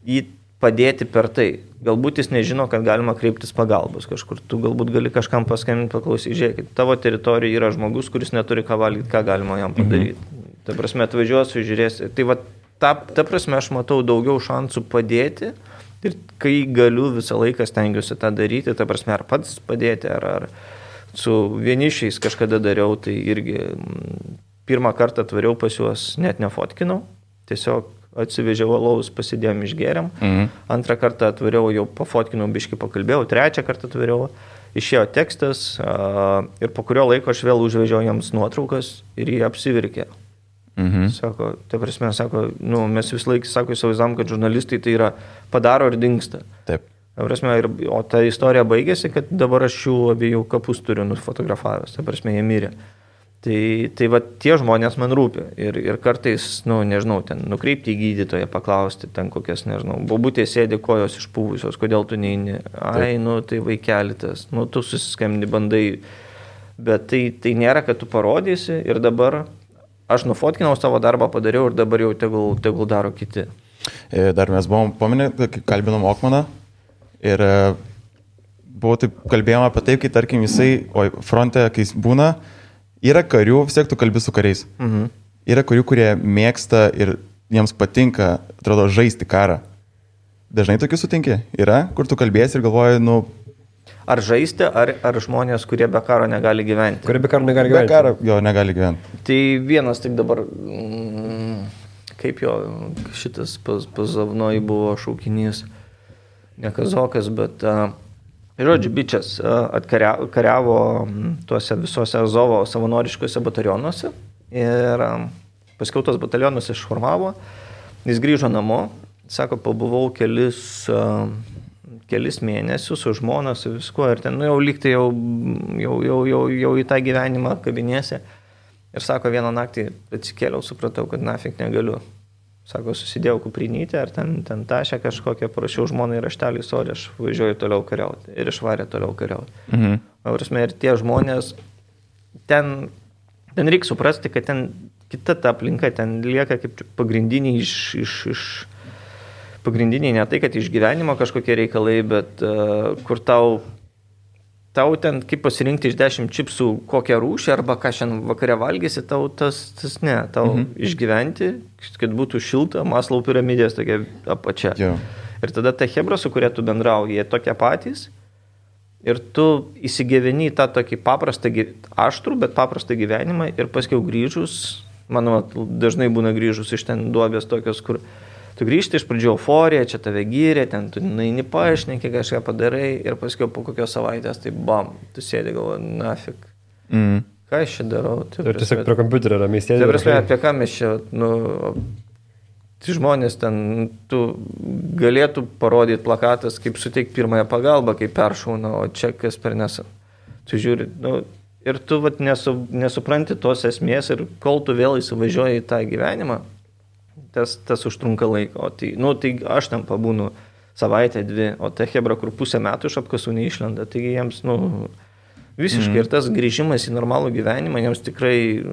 jį padėti per tai. Galbūt jis nežino, kad galima kreiptis pagalbos kažkur. Tu galbūt gali kažkam paskambinti, paklausyti, žiūrėkit, tavo teritorijoje yra žmogus, kuris neturi ką valgyti, ką galima jam padaryti. Ta prasme, atvažiuosiu, žiūrėsiu. Tai ta prasme, aš matau daugiau šansų padėti. Ir kai galiu visą laiką stengiuosi tą daryti, ta prasme, ar pats padėti, ar su vienišiais kažkada dariau, tai irgi pirmą kartą atvariau pas juos, net nefotkinau, tiesiog atsivežiau alaus, pasidėjom, išgėrėm, antrą kartą atvariau, jau pafotkinau, biškį pakalbėjau, trečią kartą atvariau, išėjo tekstas ir po kurio laiko aš vėl užvežiau jiems nuotraukas ir jie apsivirkė. Sako, tai prasme, mes vis laik, įsivaizdavom, kad žurnalistai tai yra padaro ir dingsta. Taip. Prasme, o ta istorija baigėsi, kad dabar aš jų abiejų kapus turiu nufotografavęs, tai prasme, jie mirė. Tai va, tie žmonės man rūpi ir kartais, nežinau, ten nukreipti į gydytoją, paklausti, ten kokias, nežinau, bobutė sėdi kojos išpūvusios, kodėl tu neini, tai vaikelitas, tu susiskambini, bandai, bet tai nėra, kad tu parodysi ir dabar aš nufotkinau savo darbą, padariau ir dabar jau tegul daro kiti. Dar mes buvom paminę, kai kalbinom Okmaną ir kalbėjom apie taip, kai tarkim jisai, fronte, kai jis būna, yra karių, vis tiek tu kalbi su kariais. Yra karių, kurie mėgsta ir jiems patinka, atrodo, žaisti karą. Dažnai tokių sutinki? Yra, kur tu kalbėsi ir galvoji, Ar žaisti, ar žmonės, kurie be karo negali gyventi? Kurie be karo negali gyventi. Be karo jo negali gyventi. Tai vienas tik dabar, kaip jo šitas Pazavnoj buvo šaukinys, ne kazokas, bet, žodžiu, bičias atkariavo tuose visose Azovo savanoriškose batalionuose ir paskiau tos batalionus išformavo, jis grįžo namo, sako, pabuvau kelis mėnesius su žmona, su viskuo ir ten, jau lygtai jau į tą gyvenimą kabinėse. Ir sako, vieną naktį atsikėliau, supratau, kad nafik negaliu. Sako, susidėjau kuprinytę, ar ten tašę kažkokią, parašiau žmonai raštelį, sorry, aš važiuoju toliau kariauti. Ir išvarė toliau kariauti. Mhm. Prasme, ir tie žmonės, ten reikia suprasti, kad ten kita ta aplinka, ten lieka kaip pagrindiniai pagrindiniai ne tai, kad iš gyvenimo kažkokie reikalai, bet kur tau ten kaip pasirinkti iš 10 čipsų kokią rūšį arba ką šiandien vakare valgysi, tau tas ne, tau išgyventi, kad būtų šilta, Maslow piramidės tokia apačia. Jo. Ir tada ta chebra, su kuria tu bendrauji, jie tokie patys ir tu įsigyveni į tą tokį paprastą, aštrų, bet paprastą gyvenimą ir paskiau grįžus, manau, dažnai būna grįžus iš ten duobės tokios, kur tu grįžti iš pradžių euforija, čia tave gyrė, ten tu naini paaiškinti, kažką padarai ir paskui po kokios savaitės, tai bam, tu sėdi galvoji, nafik, ką aš čia darau? Ir tiesiog prie kompiuterio ramiai sėdi. Tai prasme, apie ką mes čia, tai žmonės ten, tu galėtų parodyti plakatas, kaip suteikti pirmąją pagalbą, kaip peršauna, o čia kas per nesą. Tu žiūri, ir tu nesupranti tos esmės ir kol tu vėl įsivažiuoji į tą gyvenimą, tas užtrunka laiko. Tai aš ten pabūnu savaitę, 2, o ta hebra, kur pusę metų iš apkasų neišlenda, taigi jiems, visiškai ir tas grįžimas į normalų gyvenimą jiems tikrai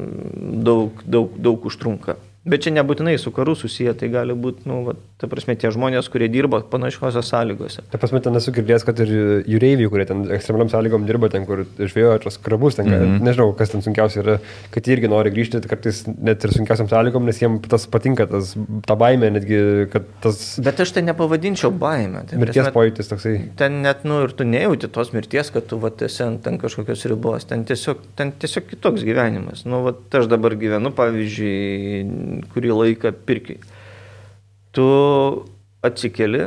daug užtrunka. Bet čia nebūtinai su karu susiję, tai gali būti, ta prasme, tie žmonės, kurie dirba panašiose sąlygose. Ta prasme, ten esu girdėjęs, kad ir jūreiviai, kurie ten ekstremaliam sąlygom dirba, ten, kur žvėjoja tos krabus, ten, nežinau, kas ten sunkiausia yra, kad jie irgi nori grįžti, kartais net ir sunkiausiam sąlygom, nes jiems tas patinka, ta baimė, netgi, kad tas... Bet aš tai nepavadinčiau baimę. Tai mirties pojūtis toksai. Ten net, ir tu nejauti tos mirties, kad tu esi ant kažkokios ribos, ten tiesiog kitoks gyvenimas. Aš dabar gyvenu, pavyzdžiui, kurį laiką pirkiai. Tu atsikeli,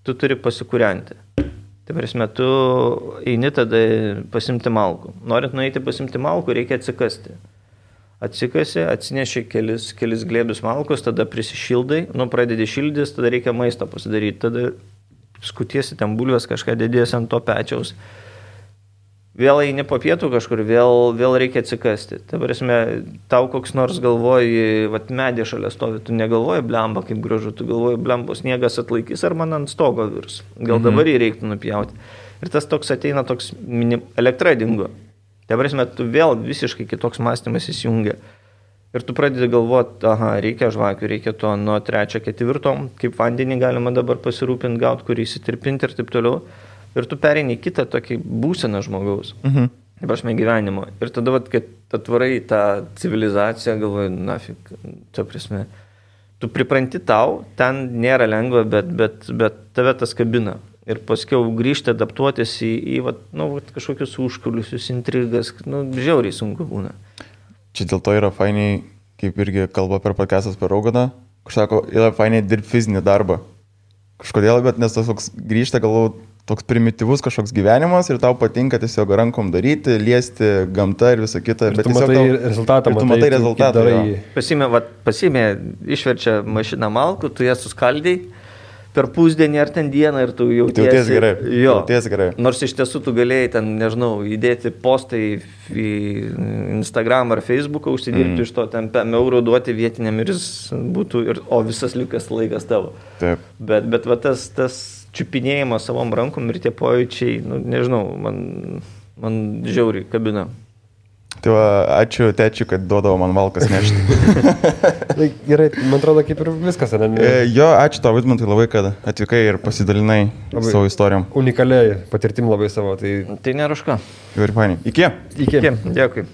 tu turi pasikūrenti. Tai prasme, tu eini tada pasimti malkų. Norint nueiti pasimti malkų, reikia atsikasti. Atsikasi, atsineši kelis glėbius malkos, tada prisišildai, pradedi šildys, tada reikia maisto pasidaryti, tada skutiesi ten bulvės, kažką dėdėsi ant to pečiaus. Vėl eini po pietų kažkur, vėl reikia atsikasti. Ta prasme, tau koks nors galvoji, medė šalia stovi, tu negalvoji blemba kaip gražu, tu galvoji blemba, sniegas atlaikys ar man ant stogo virs. Gal dabar jį reiktų nupjauti. Ir tas toks ateina, toks elektra dingo. Ta prasme, tu vėl visiškai kitoks mąstymas įsijungia. Ir tu pradedi galvoti, reikia žvakių, reikia to nuo 3, 4, kaip vandenį galima dabar pasirūpinti, gauti, kurį įsitirpinti ir taip toliau. Ir tu pereini kitą tokį būseną žmogaus, prasme gyvenimo. Ir tada, kad atvarai tą civilizaciją, galvoju, nafik, ta prasme, tu pripranti tau, ten nėra lengva, bet tave tas kabina. Ir paskiau grįžti, adaptuotis į kažkokius užkuliusius, intrigas, žiauriai sunku būna. Čia dėl to yra fainiai, kaip irgi kalba per podcastas per Roganą, sako, yra fainiai dirbti fizinį darbą. Kažkodėl, bet nes tas toks grįžta, galvoju, toks primityvus kažkoks gyvenimas ir tau patinka tiesiog rankom daryti, liesti gamtą ir visą kitą. Ir tu matai rezultatą. Tu matai rezultatą. Pasimė, išverčia mašiną malkų, tu ją suskaldai per pusdienį ar ten dieną ir tu jautiesi gerai. Jo. Jautiesi gerai. Nors iš tiesų tu galėjai ten, nežinau, įdėti postai į Instagram ar Facebooką, užsidirbti iš to ten eurų duoti vietiniam ir jis būtų, o visas likas laikas tavo. Taip. Bet tas čiupinėjimas savom rankom ir tie pojūčiai, nežinau, man žiauriai kabina. Tai ačiū tečiui, kad duodavo man malkas nešti. Gerai, man atrodo, kaip ir viskas. Jo, ačiū tau, Vidmantai, labai, kad atvykai ir pasidalinai savo istorijom. Unikaliai patirtim labai savo. Tai nėra už ką. Ir fainiai. Iki. Dėkui.